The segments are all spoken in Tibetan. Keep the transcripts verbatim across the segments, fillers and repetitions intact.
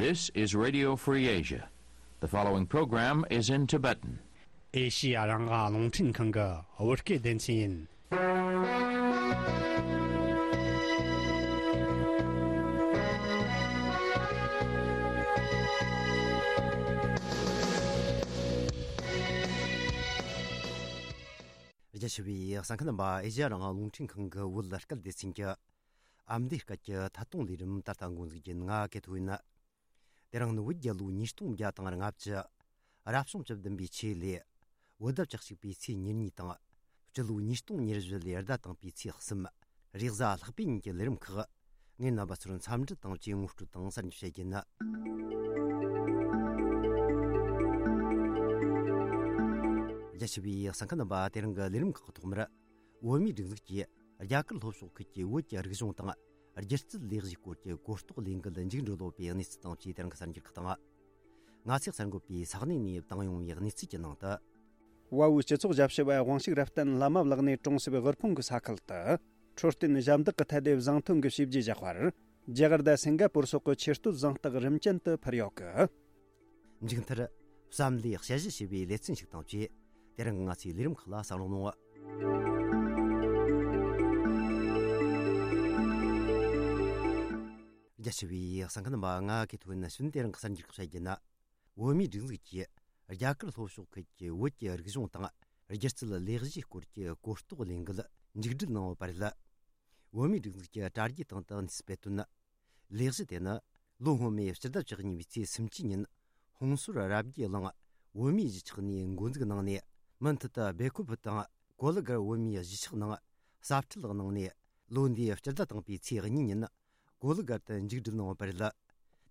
This is Radio Free Asia. The following program is in Tibetan. ཨེ་ཤི་ཡ་རང་དབང་རླུང་འཕྲིན་ཁང་གི་བོད་སྐད་སྡེ་ཚན་ཡིན། རྒྱ་ཆེ་བའི་གསན་མཁན་རྣམ་པ། ཨེ་ཤི་ཡ་རང་དབང་རླུང་འཕྲིན་ཁང་གི་བོད་སྐད་སྡེ་ཚན་གྱི་ཨ་མདོའི་སྐད་ཀྱི་ཐད་གཏོང་ལས་རིམ་ད་ལྟ་འགོ་འཛུགས་རྒྱུ་ཡིན། ང་ཀེ་ཐོ་ཡིན། དེ་རིང་ནི་བོད་རྒྱལ་ལོ་ཉིས་སྟོང་བརྒྱ་དང་ལྔ་བཅུ། རབ་བྱུང་བཅུ་བདུན་པའི་ཆེས་ལས། བོད་ཟླ་བཅུ་གཅིག་པའི་ཚེས་ཉེར་གཉིས་དང་། སྤྱི་ལོ་ཉིས་སྟོང་ཉེར་བཞི་ལོའི་ཟླ་དང་པོའི་ཚེས་གསུམ། རེས་གཟའ་ལྷག་པའི་ཉིན་གྱི་ལས་རིམ་ཁག། ངས་རྣམ་པ་ཚོར་འཚམས་འདྲི་དང་བཅས་ངོ་སྤྲོད་དང་གསར་འགྱུར་བཤད་རྒྱུ་ཡིན། རྒྱ་ཆེ་བའི་གསན་མཁན་རྣམ་པ། དེ་རིང་གི་ལས་རིམ་ཁག་གི་ཐོག་མར། བོད་མིའི་སྒྲིག་འཛུགས་ཀྱིས་རྒྱ་གར་ལྷོ་ཕྱོགས་ཁུལ་གྱི་བོད་ཀྱི་རིག་གཞུང་དང་། སྒྱུ་རྩལ་ལས་གཞིའི་སྐོར་གྱི་གོ་རྟོགས་ལས་འགུལ་མཇུག་འགྲིལ་ཡོད་པའི་གནས་ཚུལ་དང་བཅས་དེ་རིང་གི་གསར་འགྱུར་ཁག་དང་། ང་ཚོས་གསར་འགོད་པས་ས་གནས་ནས་བཏང་ཡོང་བའི་གནས་ཚུལ་གྱི་ནང་དུ། བལ་པོའི་སྤྱི་ཚོགས་ཞབས་ཞུ་བ་དབང་ཕྱུག་རབ་བརྟན་ལྷ་མ་བླ་གནས་གྲོང་གསེབ་དབུལ་ཕོངས་ཀྱི་ས་ཁུལ་དུ། འཕྲོད་བསྟེན་ཞབས་འདེགས་ཀྱི་ཐད་དེ་བཟང་ཐོན་གྱི་བྱས་རྗེས་བཞག་པར། རྒྱ་གར་དང་སིང་ག་པུར་སོགས་ཀྱི་ཆེ་བསྟོད་གཟེངས་རྟགས་རིམ་ཅན་དུ་ཕུལ་ཡོད་གི། མཇུག་མཐར། བསམ་བློའི་དཔྱད་གཞི་ཞེས་པའི་ལེ་ཚན་ཞིག་དང་བཅས། དེ་རིང་ང་ཚོའི་ལས་རིམ་ཁག་ལ་གསན་རོགས་གནང་། རྒྱ་ཆེ་བའི་གསན་མཁན་རྣམ་པ། ང་ཀེ་ཐོ་ཡིན། ནས་ཕྱིན་དེ་རིང་གི་གསར་འགྱུར་ཁག་བཤད་རྒྱུ་ན། བོད་མིའི་སྒྲིག་འཛུགས་ཀྱིས་རྒྱ་གར་ལྷོ་ཕྱོགས་ཁུལ་གྱི་བོད་ཀྱི་རིག་གཞུང་དང་། སྒྱུ་རྩལ་ལས་གཞིའི་སྐོར་གྱི་གོ་རྟོགས་ལས་འགུལ་མཇུག་སྒྲིལ་གནང་ཡོད་པ་རེད། བོད་མིའི་སྒྲིག་འཛུགས་ཀྱི་དྲ་རྒྱའི་སྟེང་དུ་གནས་ཚུལ་སྤེལ་དོན། ལས་གཞི་དེ་ནི་ལོ་སྔོན་མའི་སྤྱི་ཟླ་བཅུ་གཉིས་པའི་ཚེས་སུམ་ཅུ་ཉིན། ཧོང་སུར་རབ་རྒྱས་གླིང་བོད་མིའི་གཞིས་ཆགས་ནས་འགོ་འཛུགས་གནང་ནས། མུ་མཐུད་དུ་སྦེལ་ཀོབ་དང་གོ་ལི་གར་བོད་མིའི་གཞིས་ཆགས་ནང་གསར་འཕྲུལ་གནང་ནས། ལོ་འདིའི་སྤྱི་ཟླ་དང་པོའི་ཚེས་གཉིས་ཉིན་གོ་ལི་གར་དུ་མཇུག་སྒྲིལ་གནང་བ་རེད།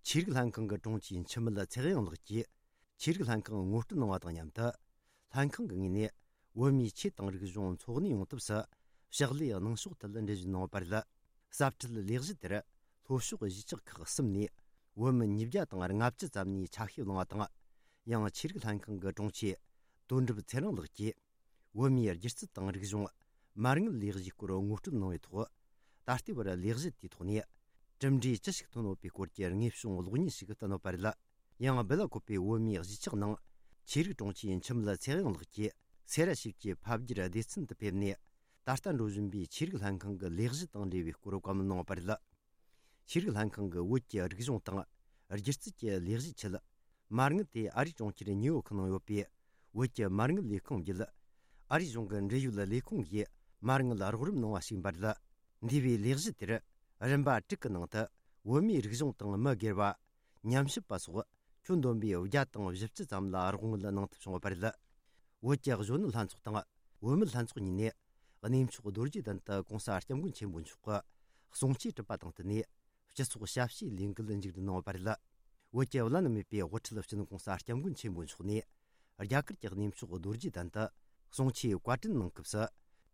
ཆོས་རིག་ལྷན་ཁང་གི་དྲུང་ཆེ་འཆི་མེད་ཚེ་དབྱངས་ལགས་ཀྱིས། ཆོས་རིག་ལྷན་ཁང་ངོ་སྤྲོད་གནང་བ་དང་མཉམ་དུ། ལྷན་ཁང་གི་ངོས་ནས་བོད་མིའི་ཆོས་དང་རིག་གཞུང་འཚོ་གནས་ཡོང་ཐབས་སུ་ཕྱག་ལས་གནང་ཕྱོགས་ཐད་འགྲེལ་བརྗོད་གནང་བ་རེད། གསར་འཕྲུལ་ལས་གཞི་དེར་ལྷོ་ཕྱོགས་གཞིས་ཆགས་ཁག་གསུམ་ནས་བོད་མི་ཉིས་བརྒྱ་དང་ལྔ་བཅུ་ཙམ་ནས་ཆ་ཤས་བླངས་པ་དང་། ཡང་ཆོས་རིག་ལྷན་ཁང་གི་དྲུང་ཆེ་དོན་གྲུབ་ཚེ་རིང་ལགས་ཀྱིས། བོད་མིའི་སྒྱུ་རྩལ་དང་རིག་གཞུང་། མ་དངུལ་ལས་གཞིའི་སྐོར་ངོ་སྤྲོད་གནང་བའི་ཐོག་ད་ལྟའི་བར་ལས་གཞི་དེའི་ཐོག་ནས་གྲུབ་འབྲས་ཅི་ཞིག་ཐོན་ཡོད་པའི་སྐོར་གྱི་དངོས་བྱུང་གློག་བརྙན་ཞིག་བསྟན་ཡོད་པ་རེད། ཡང་སྦེ་ལ་ཀོ་པའི་བོད་མིའི་གཞིས་ཆགས་ནང་ཆོས་རིག་དྲུང་ཆེ་འཆི་མེད་ཚེ་དབྱངས་ལགས་ཀྱིས་སེ་ར་ཞིབ་ཀྱི་ཕ་བརྒྱུད་སྡེ་ཚན་དུ་ཕེབས་ནས། ད་ལྟ་འགྲོ་བཞིན་པའི་ཆོས་རིག་ལྷན་ཁང་གི་ལས་གཞི་དང་འབྲེལ་བའི་སྐོར་བཀའ་མོལ་གནང་བ་རེད། ཆོས་རིག་ལྷན་ཁང་གིས་བོད་ཀྱི་རིག་གཞུང་དང་སྒྱུ་རྩལ་གྱི་ལས་གཞིའི་ཆེད། མ་དངུལ་དེ་ཨ་རིའི་གྲོང་ཁྱེར་ཉིའུ་ཡོག་ནང་ཡོད་པའི་བོད་ཀྱི་མ་དངུལ་ལས་ཁུངས་བརྒྱུད། ཨ་རིའི་གཞུང་གི་འབྲེལ་ཡོད་ལས་ཁུངས་ཀྱིས་མ་དངུལ་རོགས་རམ་གནང་བ་ཞིག་ཡིན་པ་རེད། འདས་པའི་ལས་གཞི་དེར་རིམ་པ་དྲུག་གི་ནང་དུ་བོད་མིའི་རིག་གཞུང་དང་མི་སྒེར་བ། ཉམས་ཞིབ་པ་སོགས་ཁྱོན་བསྡོམས་པའི་བརྒྱ་དང་བཞི་བཅུ་ཙམ་ལ་རོགས་དངུལ་གནང་ཐབས་བྱུང་བ་རེད། བོད་ཀྱི་གཞོན་ནུ་ལྷན་ཚོགས་དང་བུད་མེད་ལྷན་ཚོགས་གཉིས་ནས་གནས་མཆོག་རྡོ་རྗེ་གདན་དུ་གོང་ས་སྐྱབས་མགོན་ཆེན་པོ་མཆོག་གི་གསུང་ཆོས་གྲུབ་པ་དང་བསྟུན་ནས། སྤྱི་ཚོགས་ཞབས་ཕྱིའི་ལས་འགུལ་མཇུག་སྒྲིལ་གནང་བ་རེད། བོད་ཀྱི་བླ་ན་མེད་པའི་དབུ་ཁྲིད་སྤྱི་ནོར་གོང་ས་སྐྱབས་མགོན་ཆེན་པོ་མཆོག་ནས། རྒྱ་གར་གྱི་གནས་མཆོག་རྡོ་རྗེ་གདན་དུ་གསུང་ཆོས་བཀའ་དྲིན་གནང་སྐབས་སུ།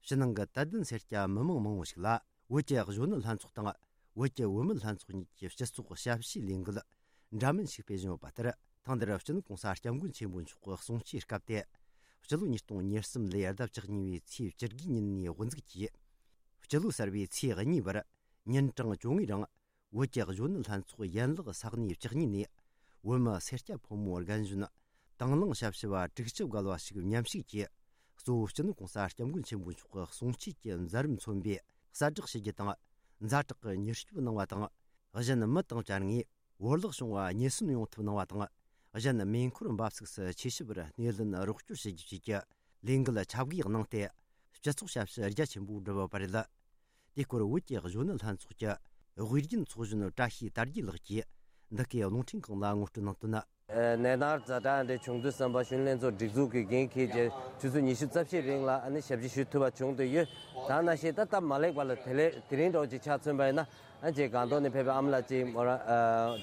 ཕྱི་ནང་གི་དད་ལྡན་སེར་སྐྱ་མི་མང་མང་བོ་ཞིག་ལ། བོད་ཀྱི་གཞོན་ནུ་ལྷན་ཚོགས་དང་། བོད་ཀྱི་བུད་མེད་ལྷན་ཚོགས་གཉིས་ཀྱི་སྤྱི་ཚོགས་ཞབས་ཕྱིའི་ལས་འགུལ་འདྲ་མིན་ཞིག་སྤེལ་བཞིན་ཡོད་པ་ལྟར། ཐེངས་འདིར་སྤྱི་ནོར་གོང་ས་སྐྱབས་མགོན་ཆེན་པོ་མཆོག་གི་གསུང་ཆོས་སྐབས་ཏེ། སྤྱི་ལོ་ཉིས་སྟོང་ཉེར་གསུམ་ལོའི་ཟླ་བཅུ་གཉིས་པའི་ཚེས་བཅུ་དགུའི་ཉིན་ནས་དབུ་འཛུགས་ཀྱིས། སྤྱི་ལོ་གསར་པའི་ཚེས་གཉིས་བར་ཉིན་གྲངས་བཅོ་ལྔའི་རིང་། བོད་ཀྱི་གཞོན་ནུ་ལྷན་ཚོགས་ཡན་ལག་ས་གནས་བཅུ་གཉིས་ནས། བོད་མི་སེར་སྐྱ་ཕོ་མོ་རྒན་གཞོན། དང་བླངས་ཞབས་ཞུ་བ་དྲུག་ཅུ་བརྒལ་བ་ཞིག་མཉམ་ཞུགས་ཀྱིས། གཙོ་བོ་སྤྱི་ནོར་གོང་ས་སྐྱབས་མགོན་ཆེན་པོ་མཆོག་གི་གསུང་ཆོས་ཀྱི་མཛད་རིམ་མཚོན་པའི་གསལ་བསྒྲགས་ཞུ་རྒྱུ་དང་། ཛ་དྲག་གི་མྱུར་སྐྱོབ་གནང་བ་དང་། གཞན་མི་དང་བཅར་ངས་བོར་བརླག་བྱུང་བ་ཉེན་སྲུང་ཡོང་ཐབས་གནང་བ་དང་། གཞན་མེ་འཁོར་འབབ་ཚུགས་སུ་ཆེ་ཞིབ་པར་སྣེ་ལེན་རོགས་སྐྱོར་བྱེད་རྒྱུ་བཅས་ཀྱི་ལས་འགུལ་ཁྱབ་བགོས་གནང་སྟེ། སྤྱི་ཚོགས་ཞབས་ཞུ་རྒྱ་ཆེན་པོ་བསྒྲུབས་ཡོད་པ་རེད། དེའི་སྐོར་བོད་ཀྱི་གཞོན་ནུ་ལྷན་ཚོགས་ཀྱི་དབུས་རྒྱུན་ཚོགས་གཞོན་བཀྲ་ཤིས་དར་རྒྱས་ལགས་ཀྱིས་འདི་གའི་རླུང་འཕྲིན་ཁང་ལ་ངོ་སྤྲོད་གནང་དོན། ནད་མནར་ཛ་དྲག་འདི་བྱུང་དུས་ཙམ་པ་གཞོན་ནུ་ལྷན་ཚོགས་སྒྲིག་འཛུགས་ཀྱི་འགན་འཁྱེར་བྱས་ཆུ་ཚོད་ཉི་ཤུ་རྩ་བཞིའི་རིང་ལ་ཨ་ནི་ཞབས་ཕྱི་ཞུ་ཐུབ་པ་བྱུང་བསྡད་ཡོད། ད་ནང་བཞིན་ད་སྟབས་མ་ལེགས་པ་ལ་དེ་ལས་དེ་རིང་འདྲ་བོ་ཅིག་ཆ་མཚོན་པ་ཡིན་ན། ཨ་ཅེ་སྒང་ཏོག་ནས་ཕེབས་པའི་ཨ་མ་ལགས་ཅིག་མོ་རང་ཨ་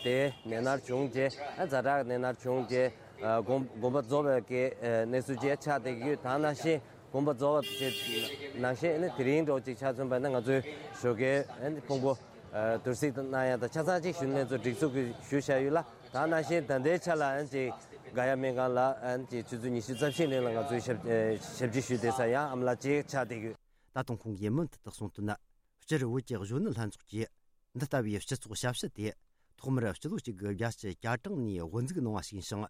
དེ་ནད་མནར་བྱུང་རྗེས་ཨ་ཛ་དྲག་ནད་མནར་བྱུང་རྗེས་ཨ་དགོངས་དགོངས་པ་རྫོགས་པའི་གི་ཨ་གནས་ཚུལ་ཅིག་ཆགས་བསྡད་ཀྱི་ཡོད། ད་ནང་བཞིན་དགོངས་པ་རྫོགས་པ་ཅིག་ནང་བཞིན་ཨ་ནི་དེ་རིང་འདྲ་བོ་ཅིག་ཆ་མཚོན་པ་ན་ང་ཚོའི་ཞོགས་ཀའི་ཨ་ནི་ཕུང་པོ་ཨ་དུར་སྲིད་གནང་ཡ་དང་ཆ་ཚང་ཅིག་གཞོན་ནུ་ལྷན་ཚོགས་སྒྲིག་འཛུགས་ཀྱིས་ཞུས་བཞག་ཡོད་ལ། ད་ནང་བཞིན་ད་ལྟའི་ཆ་ལ་ཨ་ནི་ཅིག་ག་ཡ་སྨན་ཁང་ལ་ཨ་ནི་ཅིག་ཆུ་ཚོད་ཉི་ཤུ་རྩ་བཞིའི་རིང་ལ་ང་ཚོའི་ཞབས་ཨ་ཞབས་ཕྱི་ཞུས་བསྡད་ས་ཡང་ཨ་མ་ལགས་ཅིག་ཆགས་བསྡད་ཡོད། ད་དུང་ཁོང་གིས་མུ་མཐུད་དུ་གསུངས་དོན། སྤྱིར་བོད་ཀྱི་གཞོན་ནུ་ལྷན་ཚོགས་ཀྱིས་འདི་ལྟ་བུའི་སྤྱི་ཚོགས་ཞབས་ཞུ་དེ་ ཐོག་མར་སྤྱི་ལོ་གཅིག་དགུ་བརྒྱད་ཅུ་གྱ་གྲངས་ནས་དབུ་འཛུགས་གནང་བ་ཞིག་ཡིན་ཞིང་།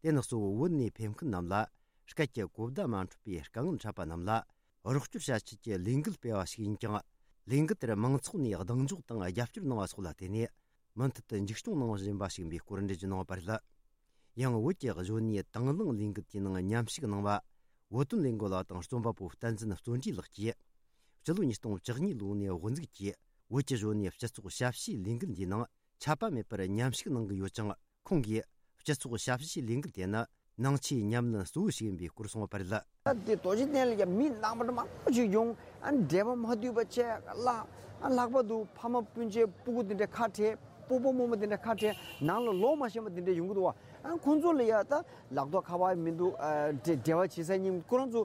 དེ་ནི་གཙོ་བོ་བོད་ནས་ཕེབས་མཁན་རྣམས་ལ་སྐད་ཀྱི་གོ་བརྡ་མ་འཕྲོད་པའི་དཀའ་ངལ་འཕྲད་པ་རྣམས་ལ་རོགས་སྐྱོར་བྱ་ཆེད་ཀྱི་ལས་འགུལ་སྤེལ་བ་ཞིག་ཡིན་ཀྱང་། ལས་འགུལ་དེར་མང་ཚོགས་ནས་གདེང་འཇོག་དང་རྒྱབ་སྐྱོར་གནང་བ་སོགས་ལ་བརྟེན་ནས། མུ་མཐུད་དུ་མཇུག་སྐྱོང་གནང་བཞིན་པ་ཞིག་ཡིན་པའི་སྐོར་འགྲེལ་བརྗོད་གནང་བ་རེད། ཡང་བོད་ཀྱི་གཞོན་ནུའི་དང་བླངས་ལས་འགུལ་དེའི་ནང་མཉམ་ཞུགས་གནང་བ། བོད་དོན་ལས་འགུལ་བ་དང་རྩོམ་པ་པོ་བསྟན་འཛིན་བརྩོན་འགྲུས་ལགས་ཀྱིས། སྤྱི་ལོ་ཉིས་སྟོང་བཅུ་གཉིས་ལོ་ནས་དབུ་འཛུགས་ཀྱིས་བོད་ཀྱི་གཞོན་ནུའི་སྤྱི་ཚོགས་ཞབས་ཞུའི་ལས་འགུལ་འདིའི་ནང་ཆད་པ་མེད་པར་མཉམ་ཞུགས་གནང་གི་ཡོད་ཅིང་། ཁོང་གིས་སྤྱི་ཚོགས་ཞབས་ཞུའི་ལས་འགུལ་དེ་ནི་ནང་ཆོས་ཉམས་ལེན་གཙོ་བོ་ཞིག་ཡིན་པའི་སྐོར་གསུངས་པ་རེད། ད་དེ་རྡོ་རྗེ་གདན་ལ་ཡང་མི་ནང་པ་མང་པོ་ཞིག་ཡོང་། ཨ་ནི་འབྲེལ་བ་མ་མཐུན་པ་བྱས་ལ། ཨ་ལྷག་པར་དུ་ཕ་མ་སྤུན་མཆེད་སྤུ་གུ་དེ་འདྲ་ཁ་བྲལ། སྤོ་བོ་རྨོ་མོ་དེ་འདྲ་ཁ་བྲལ་ནང་ལ་ལོག་མ་ཤེས་པ་དེ་འདྲ་ཡོང་གི་འདུག་བ། ཨ་ཁོང་ཚོ་ལ་ཡ་ད་ལག་ཐོག་ཁ་པར་མི་འདུག་ཨ་འབྲེལ་འབྲེལ་བ་བྱེད་ས་གཉིས་ཁོ་རང་ཚོ་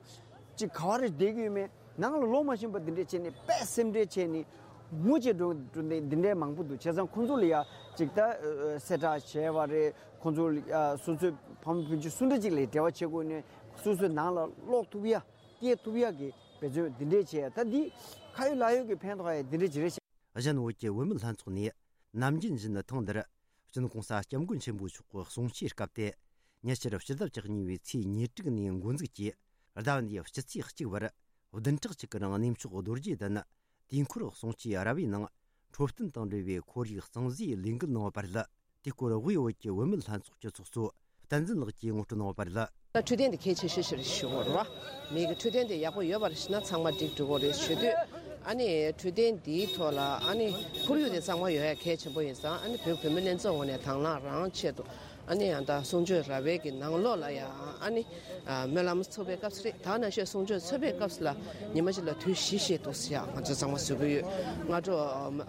ཅིག་ག་བ་རེ་བསྡད་ཀྱི་ཡོད་མེད། ནང་ལ་ལོག་མ་ཤེས་པ་འདི་འདྲས་བྱས་ནས་དཔེ་སེམས་ཁྲལ་བྱས་ནས་ངུ་བྱེད་འགྲོ་འགྲོ་འདི་འདི་འདྲས་མང་པོ་འདུག་བྱས་ཙང་ཁོང་ཚོ་ལ་ཡ་ཅིག་ད་ཨ་གསལ་བསྒྲགས་བྱས་པ་རེད། ཁོང་ཚོ་ལ་ཡ་སོ་སོའི་ཕ་མ་སྤུན་མཆེད་སུ་འདྲ་ཅིག་ལ་འབྲེལ་བ་བྱེད་དགོས་ནས་སོ་སོའི་ནང་ལ་ལོག་ཐུབ་ཡ་སྐྱེལ་ཐུབ་ཡ་གི་འབད་བརྩོན་འདི་འདྲས་བྱས་ཡ། ད་འདི་ཁ་ཡོད་ལག་ཡོད་ཀྱི་ཕན་ཐོགས་ཡ་འདི་འདྲས་ཅིག་རེད་ཤག་གཞན་བོད་ཀྱི་བུད་མེད་ལྷན་ཚོགས་ནས་ནམ་རྒྱུན་བཞིན་ཐེངས་འདིར་སྤྱི་ནོར་༸གོང་ས་༸སྐྱབས་མགོན་ཆེན་པོ་མཆོག་གི་གསུང་ཆོས་སྐབས་ཏེ། ཉེ་ཆར་ཕྱི་ཟླ་བཅུ་གཉིས་པའི་ཚེས་ཉེར་དྲུག་ནས་འགོ་འཛུགས་ཀྱིས་ཟླ་བ་འདིའི་སྤྱི་ཚེས་གཅིག་བར་བདུན་ཕྲག་གཅིག་གི་རིང་གནས་མཆོག་རྡོ་རྗེ་གདན་དུས་འཁོར་གསུང་ཆོས་ར་བའི་ནང་འཕྲོད་བསྟེན་དང་འབྲེལ་བའི་ཁོར་ཡུག་གཙང་བཟོའི་ལས་འགུལ་གནང་བ་རེད། དེའི་སྐོར་དབུས་བོད་ཀྱི་བུད་མེད་ལྷན་ཚོགས་ཀྱི་ཚོགས་གཙོ་བསྟན་འཛིན་ལགས་ཀྱིས་ངོ་སྤྲོད་གནང་བ་རེད། ད་འཕྲོད་བསྟེན་དེ་གལ་ཆེ་ཤོས་ཤིག་རེད་ཞུ་དགོས་རེད་བ། མི་གི་འཕྲོད་བསྟེན་དེ་ཡག་པོ་ཡོད་པ་རེད་ཞུ་ན་ཚང་མ་འགྲིག་འགྲོ་གི་རེད་ཞུ་དུས། ཨ་ནི་འཕྲོད་བསྟེན་འདིའི་ཐོག་ལ་ཨ་ནི་ཁོར་ཡུག་དེ་གཙང་མ་ཡོད་ཡ་གལ་ཆེན་པོ་ཡིན་ཙང་། ཨ་ནི་བོད་བུད་མེད་ལྷན་ཚོགས་ངོས་ནས་དང་བླངས་རང་ཆེད་དུ་ཨ་ནི་ཡང་ད་གསུང་ཆོས་ར་བའི་གི་ནང་ལོགས་ལ་ཡ་ཨ་ནི་སྨོན་ལམ་ཚོགས་པའི་སྐབས་སུ་རེད། ད་ནང་བཞིན་གསུང་ཆོས་ཚོགས་པའི་སྐབས་སུ་ལ་ཉི་མ་གཅིག་ལ་དུས་བཞི་ཞིག་འདུག་ཟེར་ཡ་ང་ཚོ་གཙང་མ་བཟོ་གི་ཡོད། སྔ་དྲོ་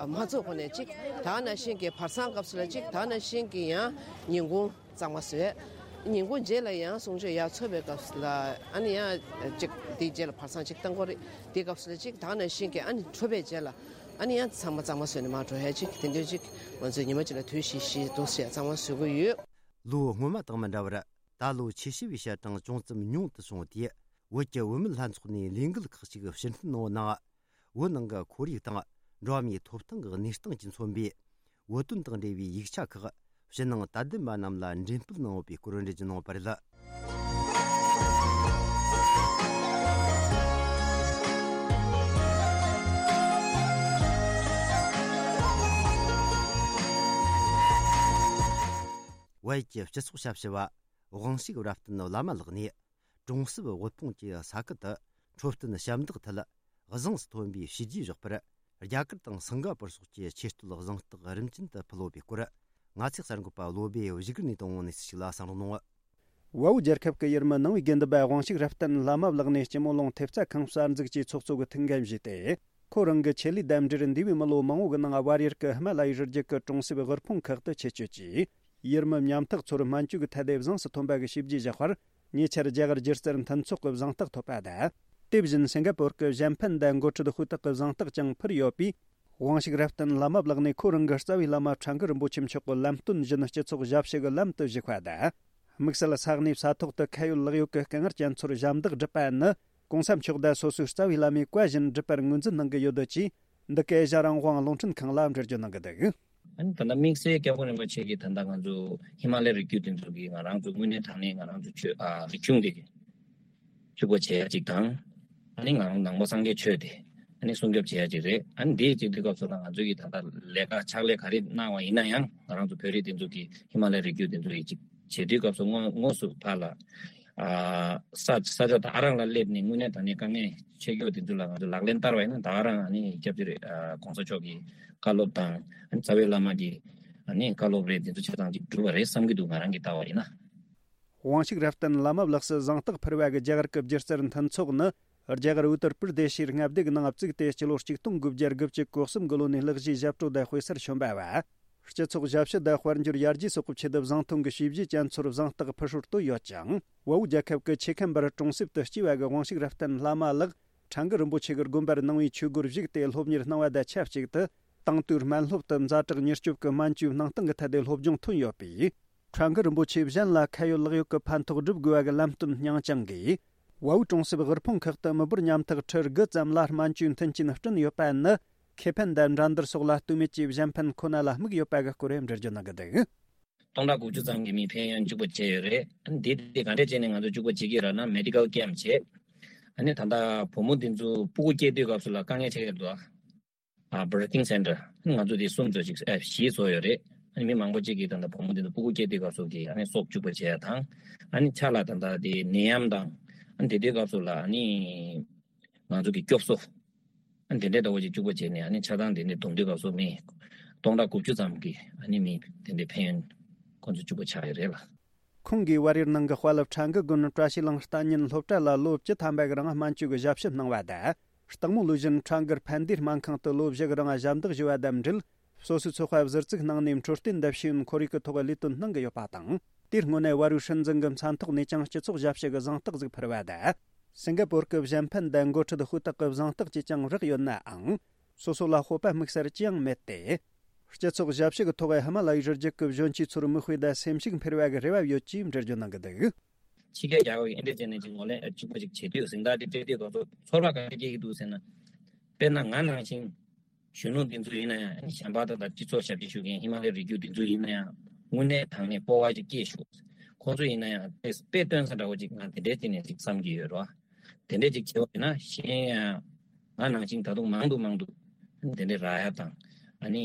མ་ཚོགས་གོང་ནས་གཅིག་ད་ནང་བཞིན་གི་བར་སང་སྐབས་སུ་ལ་གཅིག་ད་ནང་བཞིན་གི་ཡང་ཉིན་གུང་གཙང་མ་བཟོས། ཉིན་གུང་རྗེས་ལ་ཡང་གསུང་ཆོས་ཡར་ཚོགས་པའི་སྐབས་སུ་ལ་ཨ་ནི་ཡང་གཅིག་དེའི་རྗེས་ལ་བར་སང་གཅིག་བཏང་དགོས་རེད། དེའི་སྐབས་སུ་ལ་གཅིག་ད་ནང་བཞིན་གྱི་ཨ་ནི་འཕྲོད་པའི་རྗེས་ལ་ཨ་ནི་ཡང་ཚང་མ་གཙང་མ་བཟོས་ནས་མར་འགྲོ་ཡ་གཅིག་དེ་འདྲ་གཅིག་ང་ཚོས་ཉི་མ་གཅིག་ལ་དུས་བཞི་བཞི་འདུག་ཟེར་གཙང་མ་བཟོ་གི་ཡོད། ལོ་སྔོན་མ་དང་མི་འདྲ་བར་ད་ལོ་ཆེ་ཤོས་པའི་ཞལ་གྲངས་ཅུང་ཙམ་ཉུང་དུ་སོང་སྟེ། བོད་ཀྱི་བུད་མེད་ལྷན་ཚོགས་ནས་ལས་འགུལ་ཁག་ཅིག་ཕྱིར་འཐེན་གནང་བ་ནང་། བོད་ནང་གི་ཁོར་ཡུག་དང་འགྲོ་བ་མིའི་ཐོབ་ཐང་གི་གནས་སྟངས་ཀྱིས་མཚོན་པའི་བོད་དོན་དང་འབྲེལ་བའི་ཡིག་ཆ་ཁག་ཕྱི་ནང་དད་ལྡན་པ་རྣམས་ལ་འགྲེམས་སྤེལ་གནང་ཡོད་པའི་སྐོར་འགྲེལ་བརྗོད་གནང་བ་རེད། བལ་ཡུལ་གྱི་སྤྱི་ཚོགས་ཞབས་ཞུ་བ་དབང་ཕྱུག་རབ་བརྟན་བླ་མ་ལགས་ནས། གྲོང་གསེབ་དབུལ་ཕོངས་ཀྱི་ས་ཁུལ་དུ་འཕྲོད་བསྟེན་ཞབས་འདེགས་ཐད་བཟང་སུ་ཐོན་པའི་བྱས་རྗེས་བཞག་པར། རྒྱ་གར་དང་སིང་ག་པུར་སོགས་ཀྱི་ཆེས་མཐོའི་གཟེངས་རྟགས་རིམ་བྱོན་དུ་ཕུལ་ཡོད་པའི་སྐོར། ང་ཚོའི་གསར་འགོད་པ་བློ་བྷེ་བཞུགས་སྒར་ནས་བཏང་བའི་གནས་ཚུལ་ཞིག་ལ་གསན་རོགས་གནང་། བལ་པོ་རྒྱལ་ཁབ་ཀྱི་ཡུལ་མི་ནང་པའི་དགེ་འདུན་པ་དབང་ཕྱུག་རབ་བརྟན་བླ་མ་ལགས་ནས་སྤྱི་མོ་ལུང་ཐེབས་རྩ་ཁང་གསར་འཛུགས་ཀྱི་ཚོགས་གཙོ་གི་ཐུགས་འགན་བཞེས་ཏེ། ཁོ་རང་གི་ཆེད་ལས་དང་འབྲེལ་འདས་པའི་མི་ལོ་མང་བོ་གི་ནང་བལ་ཡུལ་གྱི་ཧི་མ་ལ་ཡའི་རི་རྒྱུད་ཀྱི་གྲོང་གསེབ་དབུལ་ཕོངས་ཁག་ཏུ་ཆེད་བསྐྱོད་ཀྱིས། ཡུལ་མི་ཉམ་ཐག་ཚོར་སྨན་བཅོས་ཀྱི་ཐད་དེ་བཟང་སུ་ཐོན་པ་གི་བྱས་རྗེས་བཞག་པར། ཉེ་ཆར་རྒྱ་གར་སྒྱུ་རྩལ་མཐུན་ཚོགས་ཀྱི་གཟེངས་རྟགས་ཐོབ་པ་དང་། དེ་བཞིན་སིང་ག་པུར་གྱི་གཞན་ཕན་དང་འགོ་ཁྲིད་ཧུའུ་ཏག་གི་གཟེངས་རྟགས་ཀྱང་ཕུལ་ཡོད་པས། དབང་ཕྱུག་རབ་བརྟན་བླ་མ་ལགས་ནས་ཁོ་རང་གི་རྩ་བའི་བླ་མ་ཁྲ་འགུ་རིན་པོ་ཆེ་མཆོག་གི་ལམ་སྟོན་བཞིན་སྤྱི་ཚོགས་ཞབས་ཞུ་གི་ལམ་དུ་ཞུགས་པ་དང་། དམིགས་བསལ་ས་གནས་ས་ཐོག་ཏུ་ཁ་ཡོད་ལག་ཡོད་ཀྱི་དཀའ་ངལ་ཅན་ཚོར་ཞབས་འདེགས་བསྒྲུབས་པ་ནི། གོང་ས་མཆོག་དང་སོ་སོའི་རྩ་བའི་བླ་མའི་བཀའ་བཞིན་སྒྲུབ་པར་ངོས་འཛིན་གནང་གི་ཡོད་འདུག་ཅེས། འདི་སྐད་ཨེ་ཤ་རང་དབང་རླུང་འཕྲིན་ཁང་ལ་འགྲེལ་བརྗོད་གནང་གི་འདུག་ཨ་ནི་ད་ལྟ་དམིགས་བསལ་སྐྱབས་མགོན་རིན་པོ་ཆེ་གིས་ད་ལྟ་ང་ཚོ་ཧི་མ་ལ་ཡའི་རི་རྒྱུད་དེ་ཚོ་གི་ང་རང་ཚོ་དངོས་གནས་དྲང་གནས་ང་རང་ཚོ་ཆོས་ཨ་རིག་གཞུང་དེ་ཕྱུག་པོ་བྱེད་ཡ་གཅིག་དང་། ཨ་ནི་ང་རང་ནང་པ་སངས་རྒྱས་ཆོས་དེ་ཨ་ནི་སྲུང་སྐྱོབ་བྱེད་ཡ་གཅིག་རེད། ཨ་ནི་དེའི་གཅིག་དུས་སྐབས་སུ་ད་ང་ཚོ་གིས་ད་ལྟ་ལས་ཀ་ཕྱག་ལས་ག་རེ་གནང་བ་ཡིན་ན་ཡང་ང་རང་ཚོ་བོད་རིགས་དེ་ཚོ་གིས་ཧི་མ་ལ་ཡའི་རི་རྒྱུད་དེ་ཚོ་ཡི་གཅིག་བྱེད་དུས་སྐབས་སུ་དངོས་དངོས་སུ་ཕར་ལ། ས་ས་ཆ་ད་ག་རང་ལ་སླེབས་ནས་དངོས་གནས་དྲང་གནས་དཀའ་ངལ་འཕྲད་ཀྱི་ཡོད་དེ་ཚོ་ལ་ང་ཚོ་ལག་ལེན་བསྟར་བ་ཡིན་ན་ད་ག་རང་ཨ་ནི་སྐྱབས་རྗེ་རེད། ཨ་གོང་ས་མཆོག་གི་བཀའ་སློབ་དང་ཨ་ནི་རྩ་བའི་བླ་མ་གི་ཨ་ནི་བཀའ་སློབ་རེད། དེ་ཚོ་ཆ་ཚང་གཅིག་འགྲུབ་པ་རེད་བསམ་གྱི་འདུག་ང་རང་གི་ལྟ་བ་ཡིན་ན། དབང་ཕྱུག་རབ་བརྟན་བླ་མ་ལགས་སུ་གཟེངས་རྟགས་ཕུལ་བ་གི་རྒྱ་གར་གྱི་སྒྱུ་རྩལ་མཐུན་ཚོགས་ནི། རྒྱ་གར་ཨུ་ཏར་པུར་དེ་ཤིར་མངའ་སྡེ་གི་ནང་བཙུགས་ཏེ་སྤྱི་ལོ་གཅིག་སྟོང་དགུ་བརྒྱ་དགུ་བཅུ་གོ་གསུམ་གི་ལོ་ནས་ལྷག་བཞེས་ཞབས་བྲོ་དང་དཔེ་གསར་བྱོན་པ་བ། སྤྱི་ཚོགས་ཞབས་ཞུ་དང་དཔལ་འབྱོར་ཡར་རྒྱས་སོགས་ཀྱི་ཆེད་དུ་བཟང་ཐོན་གྱི་བྱས་རྗེས་ཅན་ཚོར་བཟང་རྟགས་ཕུལ་སྲོལ་བཏོད་ཡོད་ཅིང་། བལ་པོ་རྒྱལ་ཁབ་ཀྱི་ཆེ་ཁམས་པར་གྲོང་གསེབ་ཏུ་སྐྱེས་པ་གི་དབང་ཕྱུག་རབ་བརྟན་བླ་མ་ལགས་ཁྲ་འགུ་རིན་པོ་ཆེ་གི་དགོན་པར་ནང་པའི་ཆོས་སྒོར་ཞུགས་ཏེ་སློབ་གཉེར་གནང་བ་དང་ཆབས་ཅིག་ཏུ། དེང་དུས་སྨན་སློབ་ཏུ་ཛ་དྲག་མྱུར་སྐྱོབ་ཀྱི་སྨན་བཅོས་གནང་སྟངས་ཀྱི་ཐད་དེ་སློབ་སྦྱོང་ཐོན་ཡོད་པས། ཁྲ་འགུ་རིན་པོ་ཆེ་གཞན་ལ་ཁ་ཡོད་ལག་ཡོད་ཀྱི་ཕན་ཐོགས་སྒྲུབ་དགོས་པ་གི་ལམ་སྟོན་སྙིང་བཅངས་ཀྱིས། བལ་པོའི་གྲོང་གསེབ་དབུལ་ཕོངས་ཁག་ཏུ་མི་འབོར་ཉམ་ཐག་ཁྲི་དགུ་ཙམ་ལ་སྨན་བཅོས་མཐུན་རྐྱེན་བསྐྲུན་ཡོད་པ་ནི། ཁེ་ཕན་དང་འགྲན་བསྡུར་སོགས་ལ་ལྟོས་མེད་ཀྱིས་གཞན་ཕན་ཁོ་ན་ལ་དམིགས་ཡོད་པ་གི་སྐོར་འགྲེལ་བརྗོད་གནང་གི་འདུག་སྟོང་ཕྲག་དགུ་བཅུ་ཙམ་གྱི་མིའི་ཕན་ཡོན་གཅིག་པ་བྱས་ཡོད་རེད། འདི་དེ་ག་འདྲས་བྱས་ནས་ང་ཚོ་གཅིག་པ་བྱེད་ཀྱི་རེད་ན། མེ་ཌི་ཀལ་ཀེམ་བྱས། ཨ་ནི་ད་ལྟ་བུ་མོ་འདི་ཚོ་སྤུ་གུ་སྐྱེས་དུས་སྐབས་སུ་ལ་དཀའ་ངལ་འཕྲད་ཀྱི་འདུག་ཨ་བར་ཐིང་སེན་ཊར་ང་ཚོ་དེ་གསུམ་ཚོ་ཅིག་ཨ་བཞི་བཟོ་ཡོད་རེད། ཨ་ནི་མི་མང་པོ་ཅིག་གིས་ད་ལྟ་བུ་མོ་འདི་ཚོ་སྤུ་གུ་སྐྱེས་དུས་སྐབས་སུ་གི་ཨ་ནི་སྲོག་གཅིག་པ་བྱས་ཡ་དང་། ཨ་ནི་ཆ་ལ་ད་ལྟ་དེ་ནད་ཡམས་དང་། ཨ་ནི་དེ་དུས་སྐབས་སུ་ལ་ཨ་ནི་ང་ཚོ་གི་སྐྱོབ་གསོ། ཨ་ནི་དེ་འདྲའི་ཟླ་བ་གཅིག་གཅིག་པ་བྱས་ནས། ཨ་ནི་ཆ་ཚང་དེ་འདྲའི་བསྡོམས་དུས་སྐབས་སུ་མི་སྟོང་ཕྲག་དགུ་བཅུ་ཙམ་གྱི་ཨ་ནི་མི་དེ་འདྲའི་ཕན་ཡོན་ཁོང་ཚོ་གཅིག་པ་ཆགས་ཡོད་རེད་ལ། ཁོང་གིས་བལ་ཡུལ་ནང་གི་དཔའ་སློབ་ཁྲ་འགུ་དགོན་བཀྲ་ཤིས་གླིང་གཏན་ཉིན་སློབ་གྲྭ་ལ་ལོ་བཅུ་ཐམ་པ་གི་རིང་སྨན་བཅོས་ཀྱི་ཞབས་ཞུ་གནང་བ་དང་། སྟག་མོ་ལུས་གཞན་ཁྲ་འགུ་ཕན་བདེའི་སྨན་ཁང་དུ་ལོ་བཞི་གི་རིང་ཞབས་འདེགས་ཞུ་བ་དང་འབྲེལ། སོ་སོའི་ཚོད་དཔག་ཟུར་བཙུགས་གནང་ནས་འཕྲོད་བསྟེན་དང་ཤེས་ཡོན་ཁོར་ཡུག་གི་ཐོག་ལས་དོན་གནང་གི་ཡོད་པ་དང་། དེའི་སྔོན་ནས་བལ་ཡུལ་སྲིད་འཛིན་གྱི་མཚན་ཐོག་ནས་ཀྱང་སྤྱི་ཚོགས་ཞབས་ཞུ་གི་གཟེངས་རྟགས་ཟིག་ཕུལ་བ་དང་། སིང་ག་པོར་གྱི་གཞན་ཕན་དང་འགོ་ཁྲིད་ཧུའུ་ཏག་གི་གཟེངས་རྟགས་ཀྱིས་ཀྱང་རེག་ཡོད་ནའང་། སོ་སོ་ལ་སྤོབས་པ་དམིགས་བསལ་ཅི་ཡང་མེད་དེ། སྤྱི་ཚོགས་ཞབས་ཞུ་གི་ཐོག་ཧི་མ་ལ་ཡའི་རི་རྒྱུད་ཀྱི་གཞོན་སྐྱེས་ཚོར་མིག་དཔེ་དང་སེམས་ཤུགས་འཕེར་བ་གི་རེ་བ་ཡོད་ཅེས་འགྲེལ་བརྗོད་གནང་གི་འདུག་ཕྱི་རྒྱལ་རྒྱལ་ཁབ་ཀྱི་འདི་འདྲ་བྱས་ནས་ཅིག་ངོས་ལེན་ཨ་གཅིག་པ་ཅིག་བྱེད་དུས་གཟེངས་རྟགས་དེ་སྤྲད་དུས་སྐབས་སུ་ཚོར་བ་ག་འདྲ་སྐྱེ་གི་འདུག་ཟེར་ན། དཔེར་ན་ང་ནང་བཞིན་གཞོན་ནུ་འདི་ཚོ་ཡིན་ན་ཡང་། གཞན་པ་དང་། ད་སྤྱི་ཚོགས་ཞབས་ཕྱི་ཞུ་མཁན་ཧི་མ་ལ་ཡའི་རི་རྒྱུད་འདི་ཚོ་ཡིན་ན་ཡང་། དངོས་གནས་དྲང་གནས་སྤོབས་པ་ཅིག་སྐྱེས་ཞུ། ཁོང་ཚོ་ཡིན་ན་ཡང་དཔེ་དཔེ་སྟོན་ས་འདྲ་བོ་ཅིག་ང་དེ་འདྲའི་སྟེང་ནས་ཅིག་བསམ་གྱི་ཡོད་རེད་བ། དེ་འདྲས་ཅིག་བྱས་པ་ཡིན་ན། གཞན་ཡང་ང་ནང་བཞིན་ད་དུང་མང་དུ་མང་དུ་དེ་འདྲས་རག་ཡ་དང་། ཨ་ནི་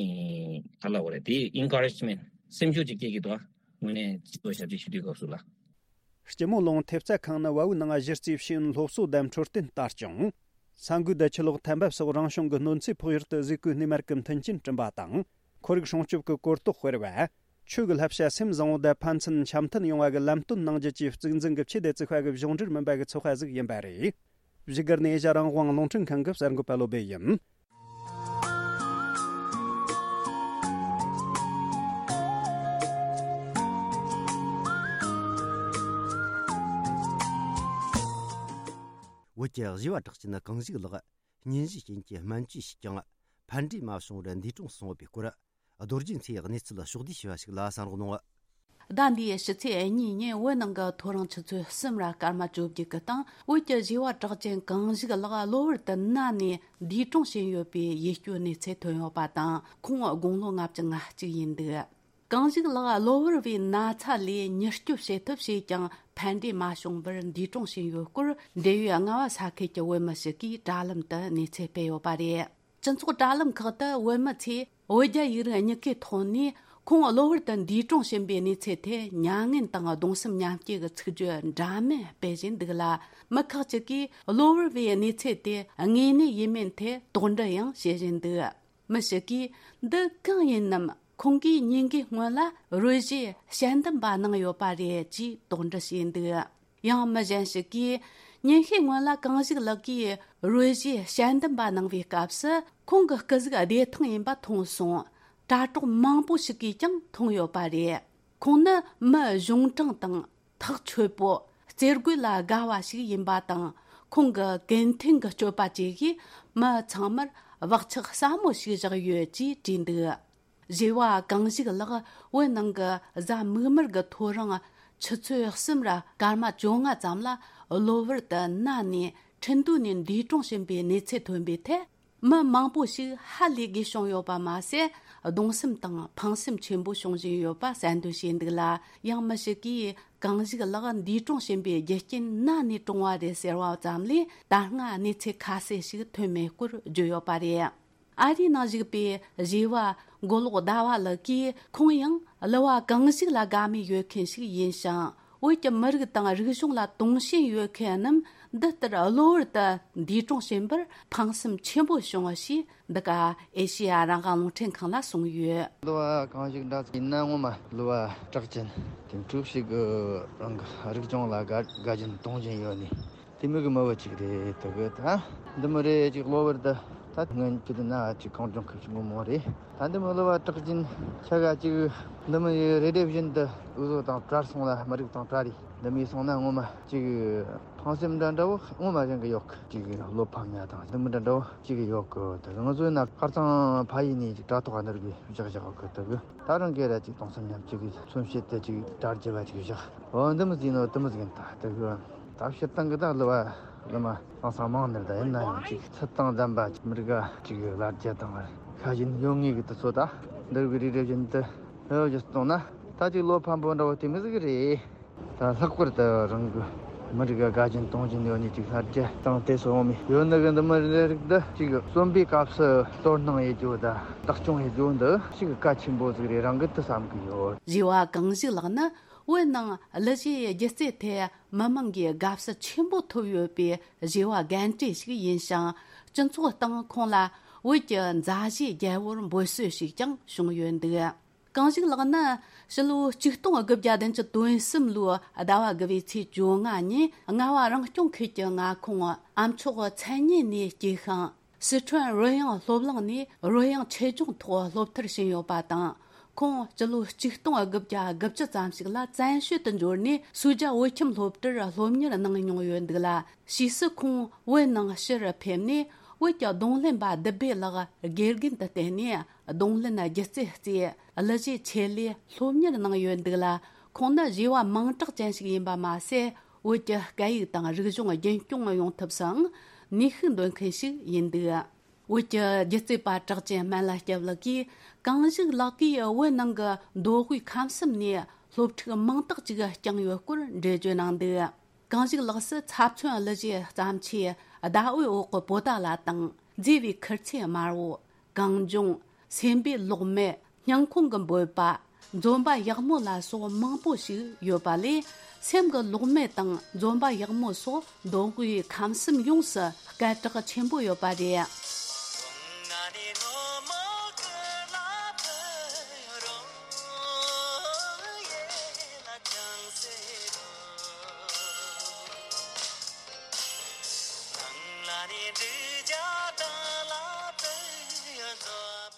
ག་ལབ་དགོས་རེད། དེ་ཨིན་ཁ་རེཇ་མེན་ཊི་སེམས་ཤུགས་ཅིག་སྐྱེ་གི་འདུག་དངོས་གནས་སྤྱི་ཚོགས་ཞབས་ཕྱི་ཞུ་དུས་སྐབས་སུ་ལ། སྐྱི་མོ་ལུང་ཐེབས་རྩ་ཁང་ནི་བལ་ཡུལ་ནང་གཞི་རྩའི་ཤེས་ཡོན་སློབ་གསོ་དང་འཕྲོད་བསྟེན་ལྟ་སྐྱོང་། ས་འགུལ་དང་ཆུ་ལོག་ཐན་འབབ་སོགས་རང་བྱུང་གི་གནོད་འཚེ་ཕོག་ཡུལ་དུ་གཟིགས་སྐོར་སྣེ་མར་གྱི་མཐུན་རྐྱེན་བསྐྲུན་པ་དང་། ཁོར་ཡུག་སྲུང་སྐྱོབ་ཀྱི་གོ་རྟོགས་སྤེལ་བ། ཆོས་ཀྱི་བསླབ་བྱ་སེམས་བཟང་བོ་དང་ཕན་ཚུན་འཆམ་མཐུན་ཡོང་བ་གི་ལམ་སྟོན་གནང་རྒྱུ་བཅས་གཙིགས་འཛིན་གྱི་ཆེད་དུ་བཙུགས་པ་གི་གཞུང་འབྲེལ་མིན་པ་གི་ཚོགས་པ་ཟིག་ཡིན་པ་རེད། བཞུགས་སྒར་ནས་ཨེ་ཤ་རང་དབང་རླུང་འཕྲིན་ཁང་གི་གསར་འགོད་པ་བློ་བྷེ་ཡིན། བོད་ཀྱི་བཞི་བ་གྲགས་ཅན་གངས་ཞིག་ལགས་སྙུན་གཞིའི་རྐྱེན་གྱིས་སྨན་བཅོས་བྱས་ཀྱང་ཕན་འབྲས་མ་བྱུང་བར་འདས་གྲོངས་སོང་བའི་སྐོར། རྡོ་རྗེ་མཚོའི་གནས་ཚུལ་ཕྱོགས་བསྡུས་ཞུས་པ་ཞིག་ལ་གསན་རོགས་གནང་། ཟླ་འདིའི་ཕྱི་ཚེས་གཉིས་ཉིན་བོད་ནང་གི་ཐོ་རངས་ཆུ་ཚོད་གསུམ་ར་སྐར་མ་བཅོ་བརྒྱད་ཀྱི་སྟེང་བོད་ཀྱི་བཞི་བ་གྲགས་ཅན་གངས་ཞིག་ལགས་གློ་བུར་དུ་ན་ནས་འདས་གྲོངས་ཕྱིན་ཡོད་པའི་ཡིད་སྐྱོའི་གནས་ཚུལ་ཐོན་ཡོད་པ་དང་། ཁོང་དགུང་ལོ་ལྔ་བཅུ་ང་གཅིག་ཡིན་འདུག་གངས་ཞིག་ལགས་གློ་བུར་བའི་ན་ཚ་ལས་མྱུར་སྐྱོབ་བྱེད་ཐབས་བྱས་ཀྱང་ཕན་འབྲས་མ་བྱུང་བར་འདས་གྲོངས་ཕྱིན་ཡོད་སྐོར། འབྲེལ་ཡོད་རྔ་བ་ས་ཁུལ་གྱི་བོད་མི་ཞིག་གིས་དྲ་ལམ་དུ་གནས་ཚུལ་སྤེལ་ཡོད་པ་རེད། སྤྱི་ཚོགས་དྲ་ལམ་ཁག་ཏུ་བོད་མི་ཚོས་བོད་རྒྱ་ཡིག་རིགས་གཉིས་ཀའི་ཐོག་ནས་ཁོང་གློ་བུར་དུ་འདས་གྲོངས་ཕྱིན་པའི་གནས་ཚུལ་ཐད་མྱ་ངན་དང་གདུང་སེམས་མཉམ་སྐྱེད་ཀྱི་ཚིག་བརྗོད་འདྲ་མིན་སྤེལ་བཞིན་འདུག་ལ། མི་ཁག་ཅིག་གིས་གློ་བུར་བའི་གནས་ཚུལ་དེ་དངོས་གནས་ཡིན་མིན་ཐད་དོགས་འདྲི་ཡང་བྱེད་བཞིན་འདུག་མི་ཞིག་གིས། འདི་གང་ཡིན་ནམ། ཁོང་གིས་ཉིན་འགའི་སྔོན་ལ་རོལ་གཞས་དཔྱད་འདེམས་པ་གནང་ཡོད་པ་རེད་ཅེས་དོགས་འདྲི་བྱས་འདུག་ཡང་མི་གཞན་ཞིག་གིས། ཉིན་ཤས་སྔོན་ལ་གངས་ཞིག་ལགས་ཀྱིས་རོལ་གཞས་དཔྱད་འདེམས་པ་གནང་བའི་སྐབས་སུ་ཁོང་གི་སྐུ་གཟུགས་བདེ་ཐང་ཡིན་པ་མཐོང་སོང་། དྲ་གྲོགས་མང་པོ་ཞིག་གིས་ཀྱང་མཐོང་ཡོད་པ་རེད། ཁོང་ནི་མི་གཞུང་དྲང་དང་། ཐག་ཆོད་པོ། རྩེད་དགོད་ལ་དགའ་བ་ཞིག་ཡིན་པ་དང་། ཁོང་གི་གུན་མཐུན་གྱི་སྤྱོད་པ་བཅས་ཀྱིས་མི་ཚང་མར་བག་ཆགས་ཟབ་མོ་ཞིག་བཞག་ཡོད་ཅེས་བྲིས་འདུག་བཞི་བ་གངས་ཞིག་ལགས་བོད་ནང་གི་གཟའ་མིག་དམར་གྱི་ཐོ་རངས་ཆུ་ཚོད་གསུམ་ར་སྐར་མ་བཅོ་ལྔ་ཙམ་ལ་གློ་བུར་དུ་ན་ནས་ཁྲིན་ཏུའུ་ནས་འདས་གྲོངས་ཕྱིན་པའི་གནས་ཚུལ་ཐོན་པའི་ཐད། མི་མང་པོ་ཞིག་ཧ་ལས་དགོས་བྱུང་ཡོད་པ་མ་ཟད། གདུང་སེམས་དང་ཕངས་སེམས་ཆེན་པོ་བྱུང་བཞིན་ཡོད་པ་གསལ་འདོན་བྱས་འདུག་ལ། ཡང་མི་ཞིག་གིས་གངས་ཞིག་ལགས་འདས་གྲོངས་ཕྱིན་པའི་རྒྱུ་རྐྱེན་ན་ནས་གྲོངས་པ་རེད་ཟེར་བ་ཙམ་ལས་ད་སྔ་གནས་ཚུལ་ཁ་གསལ་ཞིག་ཐོན་མེད་སྐོར་བརྗོད་ཡོད་པ་རེད། ཨ་རིའི་ནང་བཞུགས་པའི་བཞི་བ་མགོ་ལོག་ཟླ་བ་ལགས་ཀྱིས། ཁོང་ཡང་གླུ་བ་གངས་ཞིག་ལ་དགའ་མོས་ཡོད་མཁན་ཞིག་ཡིན་ཞིང་། བོད་ཀྱི་མི་རིགས་དང་རིག་གཞུང་ལ་དུང་ཞེན་ཡོད་མཁན་རྣམས་འདི་ལྟར་གློ་བུར་དུ་འདས་གྲོངས་ཕྱིན་པར་ཕངས་སེམས་ཆེན་པོ་བྱུང་བ་ཞེས་འདི་ག་ཨེ་ཤེ་ཡ་རང་དབང་རླུང་འཕྲིན་ཁང་ལ་གསུངས་ཡོད། གླུ་བ་གངས་ཞིག་འདྲ་ཡིན་ན་ངོ་མ་གླུ་བ་གྲགས་ཅན་དེ་འཁྲུག་ཞིག་གི་རང་གི་རིག་གཞུང་ལ་དགའ་དགའ་ཞེན་དུང་ཞེན་ཡོད་ནི་དེ་མོ་གི་མི་བུ་ཅིག་རེད། དེ་གི་ད་འདི་མོ་རེད་ཅིག་གློ་བུར་དུ་ད་སྔོན་ཆད་དུ་ན་ཅིག་གངས་ལྗོངས་ཁུལ་ཞིག་ངོ་མ་རེད། ད་འདི་མོ་གླུ་བ་གྲགས་ཅན་ཆ་ག་ཅིག་འདི་མོ་ཡི་རེ་ལྡེ་བཞིན་དུ་འུ་ཚོ་དང་བྲལ་སོང་ལ། མི་རིགས་དང་བྲལ་རེད། འདི་མོ་སོང་ན་ངོ་མ་ཅིག་ཕངས་སེམས་འདྲ་འདྲ་བོ་ངོ་མ་གཞན་གི་ཡོད་གི། ཅིག་བློ་ཕམ་ཡ་དང་འདི་མོ་འདྲ་འདྲ་བོ་ཅིག་ཡོད་གི། དེ་ང་ཚོའི་ན་ཁ་རྩང་ཕ་ཡུལ་ནས་ཅིག་དྲ་ཐོག་ག་ནར་གི་བཞག་བཞག་གི། དེ་གི་ད་རང་གི་ར་ཅིག་གདུང་སེམས་མཉམ་སྐྱེད་ཀྱི་མཚོན་བྱེད་དུ་ཅིག་དྲ་རྒྱ་བ་ཅིག་བཞག་འོ་འདི་མོ་ཟིན་ནོ་དེ་མོ་ཟིན་ད་དེ་གི་ད་སྤྱིར་བཏང་གི་ད་གླུ་བ་ བླ་མ་ཧང་སང་མང་ནི་རེད། ད་ཡིན་ན་ཡང་ཅིག་ཚུལ་དང་ལྡན་པ་ཅིག་མི་རིགས་ཅིག་གི་ལ་རྒྱ་དང་ཤ་ཞེན་ཡོད་ངེས་ཀྱི་དུས་ཚོད་ད་འདིར་གི་རིགས་རེ་བཞིན་དུ་ཧེ་བ་ཞིག་གཏོང་ན། ད་ཅིག་བློ་ཕམ་པོ་འདྲ་བོ་དེ་མི་ཟིག་རེད། ད་ལྷག་པར་དུ་རང་གི་མི་རིགས་དགའ་ཞེན་གཏོང་བཞིན་ཡོད་ནི་ཅིག་ལ་རྒྱ་དང་དེ་སོགས་མི་ཡོད་ནི་གི་འདི་མི་རེ་རིགས་འདི་ཅིག་གསོན་པའི་སྐབས་སུ་དོ་སྣང་ཡེད་རྒྱུ་ད་བདག་སྐྱོང་ཡེད་རྒྱུ་འདི་ཅིག་གལ་ཆེན་པོ་ཟིག་རེད་རང་གི་དུ་བསམ་གི་ཡོད། རེ་བ་གང་ཞིག་ལགས་ན། བོད་ནང་གླུ་གཞས་སྒྱུ་རྩལ་ཐད་མི་མང་གི་དགའ་བསུ་ཆེན་པོ་ཐོབ་ཡོད་པའི་བྱ་བ་རྒན་གྲས་ཤིག་ཡིན་ཞིང་། སྤྱི་ཚོགས་སྟེང་ཁོང་ལ་བོད་ཀྱི་མཛའ་གཞས་རྒྱལ་བོར་འབོད་སྲོལ་ཞིག་ཀྱང་བྱུང་ཡོད་འདུག་གང་ཞིག་ལགས་ན། ཕྱི་ལོ་ཆིག་སྟོང་དགུ་བརྒྱ་བདུན་ཅུ་དོན་གསུམ་ལོའི་ཟླ་བ་དགུ་བའི་ཚེས་བཅོ་ལྔ་ཉིན། རྔ་བ་རང་སྐྱོང་ཁུལ་གྱི་མངའ་ཁོངས་ཨ་མཆོག་མཚན་སྙན་ནས་སྐྱེས་ཤིང་། སི་ཁྲོན་རོལ་དབྱངས་སློབ་གླིང་ནས་རོལ་དབྱངས་ཆེད་སྦྱོང་ཐོག་སློབ་མཐར་ཕྱིན་ཡོད་པ་དང་། ཁོང་སྤྱི་ལོ་ཆིག་སྟོང་དགུ་བརྒྱ་དགུ་བཅུ་ཙམ་ཞིག་ལ་བཙན་བྱོལ་དུ་འབྱོར་ནས་སུའུ་ཇཱ་བོད་ཁྱིམ་སློབ་གྲྭར་སློབ་གཉེར་གནང་མྱོང་ཡོད་འདུག་ལ། ཕྱིས་སུ་ཁོང་བོད་ནང་ཕྱིར་ཕེབས་ནས། བོད་ཀྱི་རྡུང་ལེན་པ་བདུད་བྷེ་ལགས་དགེ་རྒན་དུ་བསྟེན་ནས། རྡུང་ལེན་སྒྱུ་རྩལ་རྩེད། གླུ་གཞས་ཆེད་ལས་སློབ་གཉེར་གནང་ཡོད་འདུག་ལ། ཁོང་ནི་བྱ་བ་མིང་གྲགས་ཅན་ཞིག་ཡིན་པ་མ་ཟད། བོད་ཀྱི་སྐད་ཡིག་དང་རིག་གཞུང་རྒྱུན་སྐྱོང་ཡོང་ཐབས་སུའང་ནུས་ཤུགས་འདོན་མཁན་ཞིག་ཡིན་འདུག་བོད་ཀྱི་སྒྱུ་རྩལ་པ་གྲགས་ཅན་སྨན་བླ་སྐྱབས་ལགས་ཀྱིས། གང་ཞིག་ལགས་ཀྱིས་བོད་ནང་གི་མདོ་དབུས་ཁམས་གསུམ་ནས་སློབ་ཕྲུག་མང་དག་ཅིག་བསྐྱངས་ཡོད་སྐོར་འགྲེལ་བརྗོད་གནང་འདུག་གང་ཞིག་ལགས་སུ་ཚབ་མཚོན་གླུ་གཞས་བརྩམས་ཆོས་ཟླ་འོད་འོག་གི་པོ་ཏཱ་ལ་དང་། མཛེས་པའི་ཁུར་ཆེན་དམར་བོ། གངས་ལྗོངས། སེམས་པའི་གློག་མེ། སྙིང་ཁོང་གི་འབོད་པ། འཛོམས་པ་ཡག་མོ་ལ་སོགས་མང་པོ་ཞིག་ཡོད་པ་ལས། སེམས་ཀྱི་གློག་མེ་དང་འཛོམས་པ་ཡག་མོ་སོགས་མདོ་དབུས་ཁམས་གསུམ་ཡོངས་སུ་སྐད་གྲགས་ཆེན་པོ་ཡོད་པ་རེད།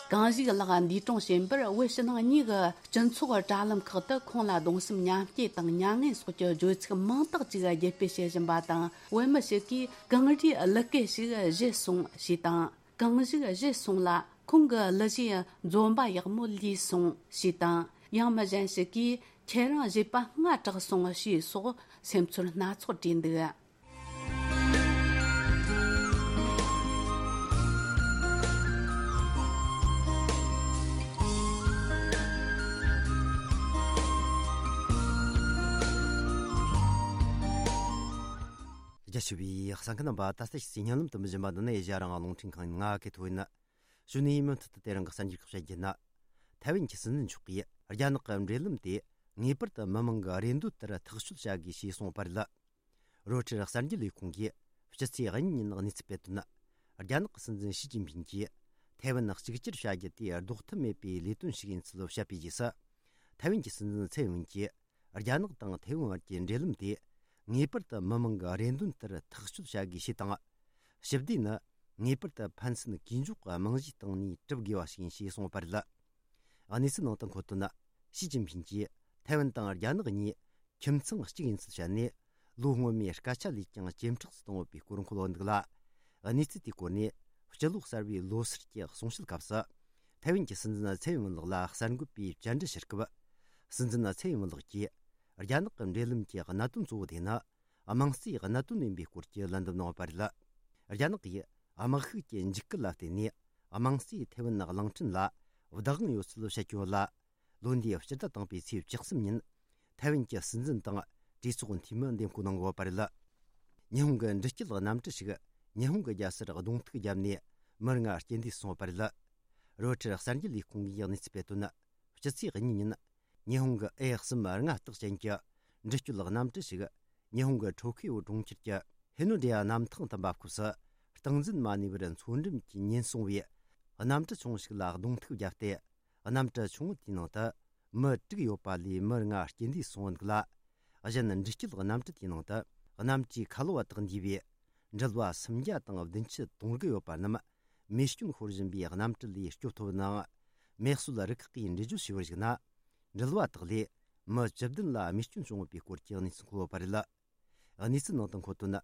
གང་ཞིག་ལགས་འདས་གྲོངས་ཕྱིན་པར། བོད་ཕྱི་ནང་གཉིས་ཀྱི་སྤྱི་ཚོགས་དྲ་ལམ་ཁག་ཏུ་ཁོང་ལ་གདུང་སེམས་མཉམ་སྐྱེད་དང་མྱ་ངན་སོགས་ཀྱི་བརྗོད་ཚིག་མང་དག་ཅིག་བརྒྱུད་སྤེལ་བྱེད་བཞིན་པ་དང་། བོད་མི་ཞིག་གིས་གངས་རིའི་གླུ་སྐད་ཞིག་བཞད་སོང་ཞེས་དང་། གངས་ཞིག་བཞད་སོང་ལ་ཁོང་གི་གླུ་གཞས་འཛོམས་པ་ཡག་མོ་ལུས་སོང་ཞེས་དང་། ཡང་མི་གཞན་ཞིག་གིས་ཁྱེད་རང་བཞད་པ་སྔ་དྲགས་སོང་ཞེས་སོགས་སེམས་ཚོར་སྣ་ཚོགས་བྲིས་འདུག་རྒྱ་ཆེ་བའི་གསན་མཁན་རྣམ་པ། ད་ལྟ་ཕྱི་ཚེས་ཉིན་ལམ་དུ་མི་བཞིན་པ་འདི་ནི་ཨེ་ཤ་ཡ་རང་དབང་རླུང་འཕྲིན་ཁང་ཡིན། ང་གི་ཐོ་ཡིན། གཞུག་ནས་མུ་མཐུད་དུ་དེ་རིང་གི་གསར་འགྱུར་ཁག་བཤད་རྒྱུ་ན། ཐའེ་ཝན་གྱི་སྲིད་འཛིན་མཆོག་གིས་རྒྱ་ནག་གི་འབྲེལ་ལམ་དེ་ངེས་པར་དུ་མི་མང་གི་རེ་འདོད་ལྟར་ཐག་གཅོད་བྱ་དགོས་ཞེས་གསུངས་པ་རེད། རོའི་ཊར་གསར་འགྱུར་ལས་ཁུངས་ཀྱིས་སྤྱི་ཚེས་གཉིས་ཉིན་གནས་ཚུལ་སྤེལ་དོན། རྒྱ་ནག་གི་སྲིད་འཛིན་ཞི་ཅིན་ཕིན་གྱིས་ཐའེ་ཝན་གཅིག་གྱུར་བྱ་རྒྱུ་དེ་ལྡོག་ཐབས་མེད་པའི་ལས་དོན་ཞིག་ཡིན་ཚུལ་བཤད་པའི་རྗེས་སུ། ཐའེ་ཝན་གྱི་སྲིད་འཛིན་ཚའེ་ཝེན་གྱིས་རྒྱ་ནག་དང་ཐའེ་ཝན་བར་གྱི་འབྲེལ་ལམ་དེ་ངེས་པར་དུ་མི་མང་གི་རེ་འདུན་ལྟར་ཐག་གཅོད་བྱ་དགོས་ཞེས་དང་། ཞི་བདེ་ནི་ངེས་པར་དུ་ཕན་ཚུན་གུས་འཇོག་གི་རྨང་གཞིའི་སྟེང་ནས་གྲུབ་དགོས་པ་ཞིག་ཡིན་ཞེས་གསུངས་པ་རེད། གནས་ཚུལ་ནང་དུ་འཁོད་དོན། ཞི་ཅིན་ཕིན་གྱིས་ཐའེ་ཝན་དང་རྒྱ་ནག་གཉིས་ཁྱིམ་ཚང་གཅིག་ཡིན་ཚུལ་བཤད་ནས། ལོ་སྔོན་མའི་སྐད་ཆ་ལས་ཀྱང་ཇེ་མཁྲེགས་སུ་བཏང་ཡོད་པའི་སྐོར་འཁོད་ཡོད་འདུག་ལ། གནས་ཚུལ་དེའི་སྐོར་ནས་སྤྱི་ལོ་གསར་བའི་ལོ་སར་གྱི་གསུང་བཤད་སྐབས་སུ། ཐའེ་ཝན་གྱི་སྲིད་འཛིན་ཚའེ་ཝེན་ལགས་ལ་གསར་འགོད་པས་བཅར་འདྲི་ཞུ་སྐབས། སྲིད་འཛིན་ཚའེ་ཝེན་ལགས་ཀྱིས་རྒྱ་ནག་གི་འབྲེལ་ལམ་གྱི་གནད་དོན་གཙོ་བོ་དེ་ནི། དམངས་གཙོའི་གནད་དོན་ཡིན་པའི་སྐོར་གྱི་ལན་འདེབས་གནང་བ་རེད། རྒྱ་ནག་གིས་དམག་ཤུགས་ཀྱི་འཇིགས་སྐུལ་ལ་བརྟེན་ནས། དམངས་གཙོས་ཐའེ་ཝན་གླིང་ཕྲན་ལ་བདག་དབང་ཡོད་ཚུལ་བཤད་ཀྱི་ཡོད་ལ། ལོ་འདིའི་སྤྱི་ཟླ་དང་པོའི་ཚེས་བཅུ་གསུམ་ཉིན། ཐའེ་ཝན་གྱི་སྲིད་འཛིན་དང་གྲོས་ཚོགས་འཐུས་མི་འདེམས་བསྐོ་གནང་ཡོད་པ་རེད། ཉི་ཧོང་གི་འདྲི་སྐྱོད་གནམ་གྲུ་ཞིག་ཉི་ཧོང་གི་རྒྱལ་སར་གདོང་ཐུག་བརྒྱབ་ནས་མི་ལྔ་རྐྱེན་འདས་སོང་བ་རེད། རོའི་ཊར་གསར་འགྱུར་ལས་ཁུངས་ཀྱིས་གནས་ཚུལ་སྤེལ་དོན། སྤྱི་ཚེས་གཉིས་ཉིན། ཉི་ཧོང་གི་ཨེ་གསུམ་ལྔ་རྟགས་ཅན་གྱི་འདྲི་སྐྱོད་གནམ་གྲུ་ཞིག་ཉི་ཧོང་གི་ཊོ་ཁི་ཡོ་གྲོང་ཁྱེར་གྱི་ཧི་ནོ་ཌི་ཡ་གནམ་ཐང་དུ་འབབ་སྐབས་སུ། སྟངས་འཛིན་མ་ནུས་པར་མཚོ་འགྲམ་གྱི་ཉེན་སོང་བའི་གནམ་གྲུ་ཆུང་ཞིག་ལ་གདོང་ཐུག་བརྒྱབ་སྟེ། གནམ་གྲུ་ཆུང་ངུ་དེའི་ནང་དུ་མི་དྲུག་ཡོད་པ་ལས་མི་ལྔ་རྐྱེན་འདས་སོང་འདུག་ལ། གཞན་འདྲི་སྐྱོད་གནམ་གྲུ་དེའི་ནང་དུ་གནམ་གྲུའི་ཁ་ལོ་བ་དག་འདུས་པའི་འགྲུལ་བ་སུམ་བརྒྱ་དང་བདུན་ཅུ་དོན་དགུ་ཡོད་པ་རྣམས། མེ་སྐྱོན་ཤོར་བཞིན་པའི་གནམ་གྲུ་ལས་སྐྱོབ་ཐུབ་ནའང་། མེ་གསོད་རུ་ཁག་གིས་འགྲེལ་བརྗོད་བྱས་པར་གཞིགས་ན། འགྲུལ་བ་དག་ལས་མི་བཅུ་བདུན་ལ་རྨས་སྐྱོན་བྱུང་ཡོད་པའི་སྐོར་གྱི་གནས་ཚུལ་འཁོད་ཡོད་པ་རེད། གནས་ཚུལ་ནང་དུ་འཁོད་དོན།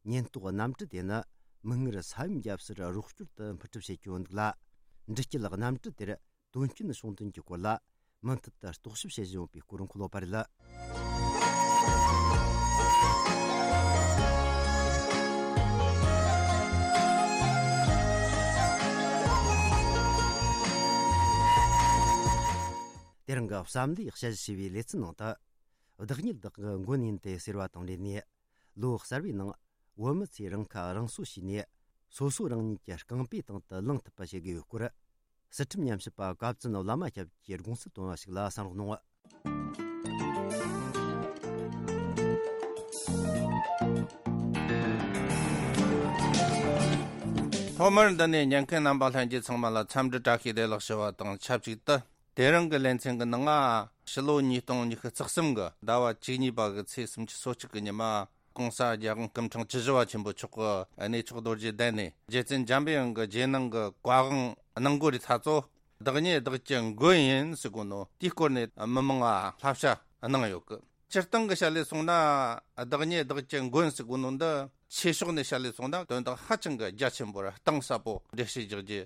ཉེན་རྟོག་གནམ་གྲུ་དེ་ནི་མིག་སྔར་ས་ཡོམ་བརྒྱབ་སར་རོགས་སྐྱོར་དུ་འཕུར་གྲབས་བྱེད་ཀྱི་ཡོད་འདུག་ལ། འདྲི་སྐྱོད་གནམ་གྲུ་དེར་དོན་རྐྱེན་བྱུང་དོན་གྱི་སྐོར་ལ་མུ་མཐུད་དུ་རྟོག་ཞིབ་བྱེད་བཞིན་ཡོད་པའི་སྐོར་འཁོད་ཡོད་པ་རེད། དེ་རིང་གི་བསམ་བློའི་དཔྱད་གཞི་ཞེས་པའི་ལེ་ཚན་ནང་དུ། བདག་ཉིད་བདག་གི་མགོན་ཡིན་ཏེ་ཟེར་བ་དང་འབྲེལ་ནས། ལོ་གསར་བའི་ནང་བོད་མི་ཚོས་རང་ཁ་རང་གསོ་བྱས་ནས། སོ་སོ་རང་ཉིད་ཀྱི་རྐང་པའི་སྟེང་དུ་ལངས་ཐུབ་པ་བྱེད་དགོས་ཡོད་སྐོར། སྲིད་ཁྲིམས་ཉམས་ཞིབ་པ་བཀའ་བཙུན་བླ་མ་སྐྱབས་ཀྱིས་དགོངས་སེལ་བཏོན་པ་ཞིག་ལ་གསན་རོགས་གནང་། ཐོག་མར་འདི་ནས་ཉན་མཁན་རྣམ་པ་ལྷན་རྒྱས་ཚང་མ་ལ་འཚམས་འདྲི་བཀྲ་ཤིས་བདེ་ལེགས་ཞུ་བ་དང་ཆབས་ཅིག་ཏུ། དེ་རིང་གི་ལེ་ཚན་གྱི་ནང་ང་ཕྱི་ལོ་ཉིས་སྟོང་ཉི་ཤུ་རྩ་གསུམ་གྱི་ཟླ་བ་བཅུ་གཉིས་པ་གི་ཚེས་སུམ་ཅུ་སོ་གཅིག་གི་ཉི་མ། ྋགོང་ས་ྋརྒྱལ་དབང་སྐུ་ཕྲེང་བཅུ་བཞི་པ་ཆེན་པོ་མཆོག་གི་གནས་མཆོག་རྡོ་རྗེ་གདན་ནས། རྗེ་བཙུན་འཇམ་པའི་དབྱངས་ཀྱི་རྗེས་གནང་གི་བཀའ་དབང་གནང་དགོས་རིགས་ཐ་ཚོ། བདག་ཉིད་བདག་གི་མགོན་ཡིན་ཟེར་གོ་ནོ་དེའི་སྐོར་ནས་མི་མང་ང་བསླབ་བྱ་གནང་ཡོད་གི། སྤྱིར་བཏང་གི་བཤད་ལས་སོང་ན། བདག་ཉིད་བདག་གི་མགོན་ཟེར་གོ་ནོ་འདི་ཆོས་ཕྱོགས་ནས་བཤད་ལས་སོང་ན་དོན་དག་ཧ་ཅང་གི་རྒྱ་ཆེན་པོ་ར་གཏིང་ཟབ་པོ་འགྲེལ་བཤད་རྒྱག་རྒྱུ་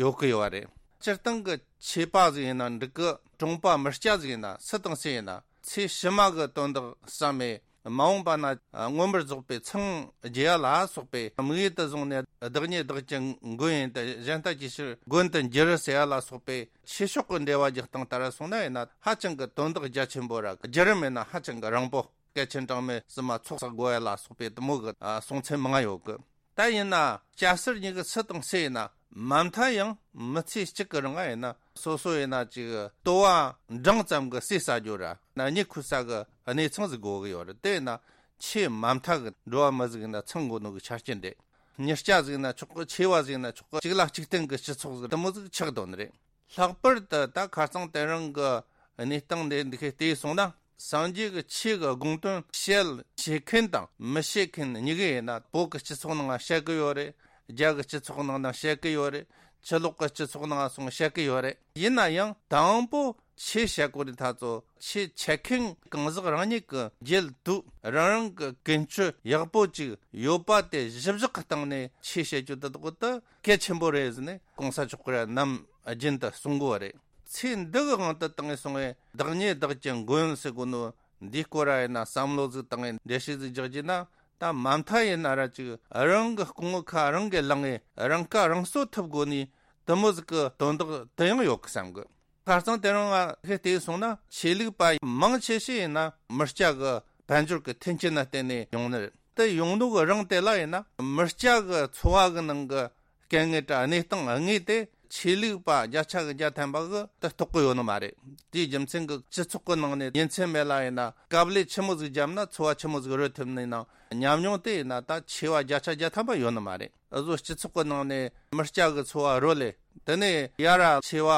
ཡོད་གི་ཡོད་རེད། སྤྱིར་བཏང་གི་ཆོས་པ་ཟིག་ཡིན་ན་འགྲིག་གི། གྲོང་པ་མི་སྐྱ་ཟིག་ཡིན་ན་སུ་དང་སུ་ཡིན་ན་ཚེ་ཕྱི་མ་གི་དོན་དག་བསམ་མེད། མ་འོངས་པ་ན་མངོན་པར་རྫོགས་པའི་མཚང་རྒྱས་ཡ་ལ་སོགས་པའི་དམིགས་ཡུལ་དུ་བཟུང་ནས། བདག་ཉིད་བདག་གི་མགོན་ཡིན་ཏེ། གཞན་ལྟ་ཅི་ཕྱིར་མགོན་དུ་འགྱུར་ཟེར་ཡ་ལ་སོགས་པའི་ཆོས་ཕྱོགས་ཀྱི་འགྲེལ་བ་རྒྱག་སྟངས་ལྟར་སོང་ན་ཡིན་ན་ཧ་ཅང་གི་དོན་དག་རྒྱ་ཆེན་པོ་ར། བརྒྱུད་རིམ་ཡིན་ན་ཧ་ཅང་གི་རིང་པོ། སྐལ་ཆེན་གྲངས་མེད་བསུ་མ་ཚོགས་བསགས་དགོས་ཡ་ལ་སོགས་པའི་དུ་མོ་གི་ཨ་གསུང་ཚན་མང་ང་ཡོད་གི། ད་ཡིན་ན་སྐྱ་སེར་གཉིས་ཀྱི་སུ་དང་སུ་ཡིན་ན་མ་མཐའ་ཡང་མི་ཚེ་གཅིག་གི་རིང་ང་ཡིན་ན་སོ་སོ་ཡིན་ན་ཅིག་ལྟོ་བ་འབྲིང་ཙམ་གྱི་ཟས་ཟ་རྒྱུ་ར་ན་གཉིད་ཁུག་ས་གི་གནས་ཚང་ཟིག་དགོས་གི་ཡོད་རེད། དེ་ཡིན་ན་ཆེས་མ་མཐའ་གི་འགྲོ་བ་མི་ཟིག་ཡིན་ན་ཚང་དགོས་ནོ་གི་ཆ་རྐྱེན་རེད། མྱི་སྐྱ་ཟིག་ཡིན་ན་ཆོག་གི། ཆེ་བ་ཟིག་ཡིན་ན་ཆོག་གི། གཅིག་ལ་གཅིག་བརྟེན་གི་སྤྱི་ཚོགས་ཟིག་དུ་མོ་ཟིག་ཆགས་དོན་རེད། ལྷག་པར་དུ་ད་ཁ་སང་དེ་རིང་གི་གནས་སྟངས་འདི་འདི་ཁའི་བལྟས་སོང་ན། སངས་རྒྱས་ཀྱི་ཆོས་ཀྱི་དགོངས་དོན་བཤད་བྱེད་མཁན་དང་མི་བཤད་མཁན་གཉིས་ཀ་ཡིན་ན། བོད་ཀྱི་སྤྱི་ཚོགས་ནང་བཤད་གི་ཡོད་རེད། རྒྱ་གི་སྤྱི་ཚོགས་ནང་ན་བཤད་གི་ཡོད་རེད། ཕྱི་ལོགས་ཀྱི་སྤྱི་ཚོགས་ནང་སོང་བཤད་གི་ཡོད་རེད། ཡིན་ན་ཡང་དང་པོ་ཆོས་བཤད་གོ་རིན་ཐ་ཚོ་ཆོས་འཆད་མཁན་གང་ཟག་རང་ཉིད་ཀྱི་རྒྱལ་དུ་རང་རང་གི་ཀུན་སྤྱོད་ཡག་པོ་ཅིག་ཡོད་པ་དེ་གཞི་བཞག་གི་སྟེང་ནས་ཆོས་བཤད་རྒྱུ་དེ་དག་ཏུ་གལ་ཆེན་པོ་རེད་ཟེར་ནས་གོང་ས་མཆོག་གིས་ནམ་རྒྱུན་དུ་གསུང་གོ་རེད། ཚེ་འདི་གི་དབང་དུ་བཏང་ངེ་སོང་ངེ་བདག་ཉིད་བདག་གི་མགོན་ཟེར་གོ་ནོ་འདིའི་སྐོར་ར་ཡིན་ན་བསམ་བློ་ཟིག་བཏང་ངེ་འགྲེལ་བཤད་ཟིག་རྒྱག་རྒྱུ་ན། ད་མ་མཐའ་ཡིན་ན་ར་ཅིག་རང་གི་སྐུ་ངོ་ཁ་རང་གིས་ལངས་ངེ་རང་ཁ་རང་གསོ་ཐུབ་དགོས་ནི་དུ་མོ་ཟིག་གི་དོན་དག་དུ་ཡང་ཡོད་གི་བསམ་གི། ཁ་སང་དེ་རིང་ང་ཧེ་བལྟས་སོང་ན་ཆོས་ལུགས་པ་མང་ཆེ་ཤོས་ཡིན་ན་མི་སྐྱ་གི་དཔལ་འབྱོར་གི་མཐུན་རྐྱེན་ལ་བརྟེན་ནས་ཡོང་ནི་རེད། དེ་ཡོང་ནོ་གི་རིང་དེ་ལ་ཡིན་ན་མི་སྐྱ་གི་འཚོ་བ་གི་ནང་གི་དཀའ་ངལ་དྲ་གནས་སྟངས་དངོས་དེ་ཆོས་ལུགས་པ་བརྒྱ་ཆ་གི་བརྒྱ་ཐམ་པ་གི་དེ་རྟོགས་གི་ཡོད་ནི་མ་རེད། དེའི་རྒྱུ་མཚན་གི་སྤྱི་ཚོགས་གི་ནང་ནས་ཉིན་མཚན་མེད་ལ་ཡིན་ན་དཀའ་ལས་ཆི་མོ་ཟིག་བརྒྱབ་ན་འཚོ་བ་ཆི་མོ་ཟིག་རོལ་ཐུབ་ནི་ནང་ཉམས་མྱོང་དེ་ཡིན་ན་ད་ཆེ་བ་བརྒྱ་ཆ་བརྒྱ་ཐམ་པ་ཡོད་ནི་མ་རེད། འུ་ཟོ་སྤྱི་ཚོགས་ཀྱི་ནང་ནས་མི་སྐྱ་གི་འཚོ་བ་རོལ་ལེ། དེ་ནས་ཡ་ར་ཆེ་བ་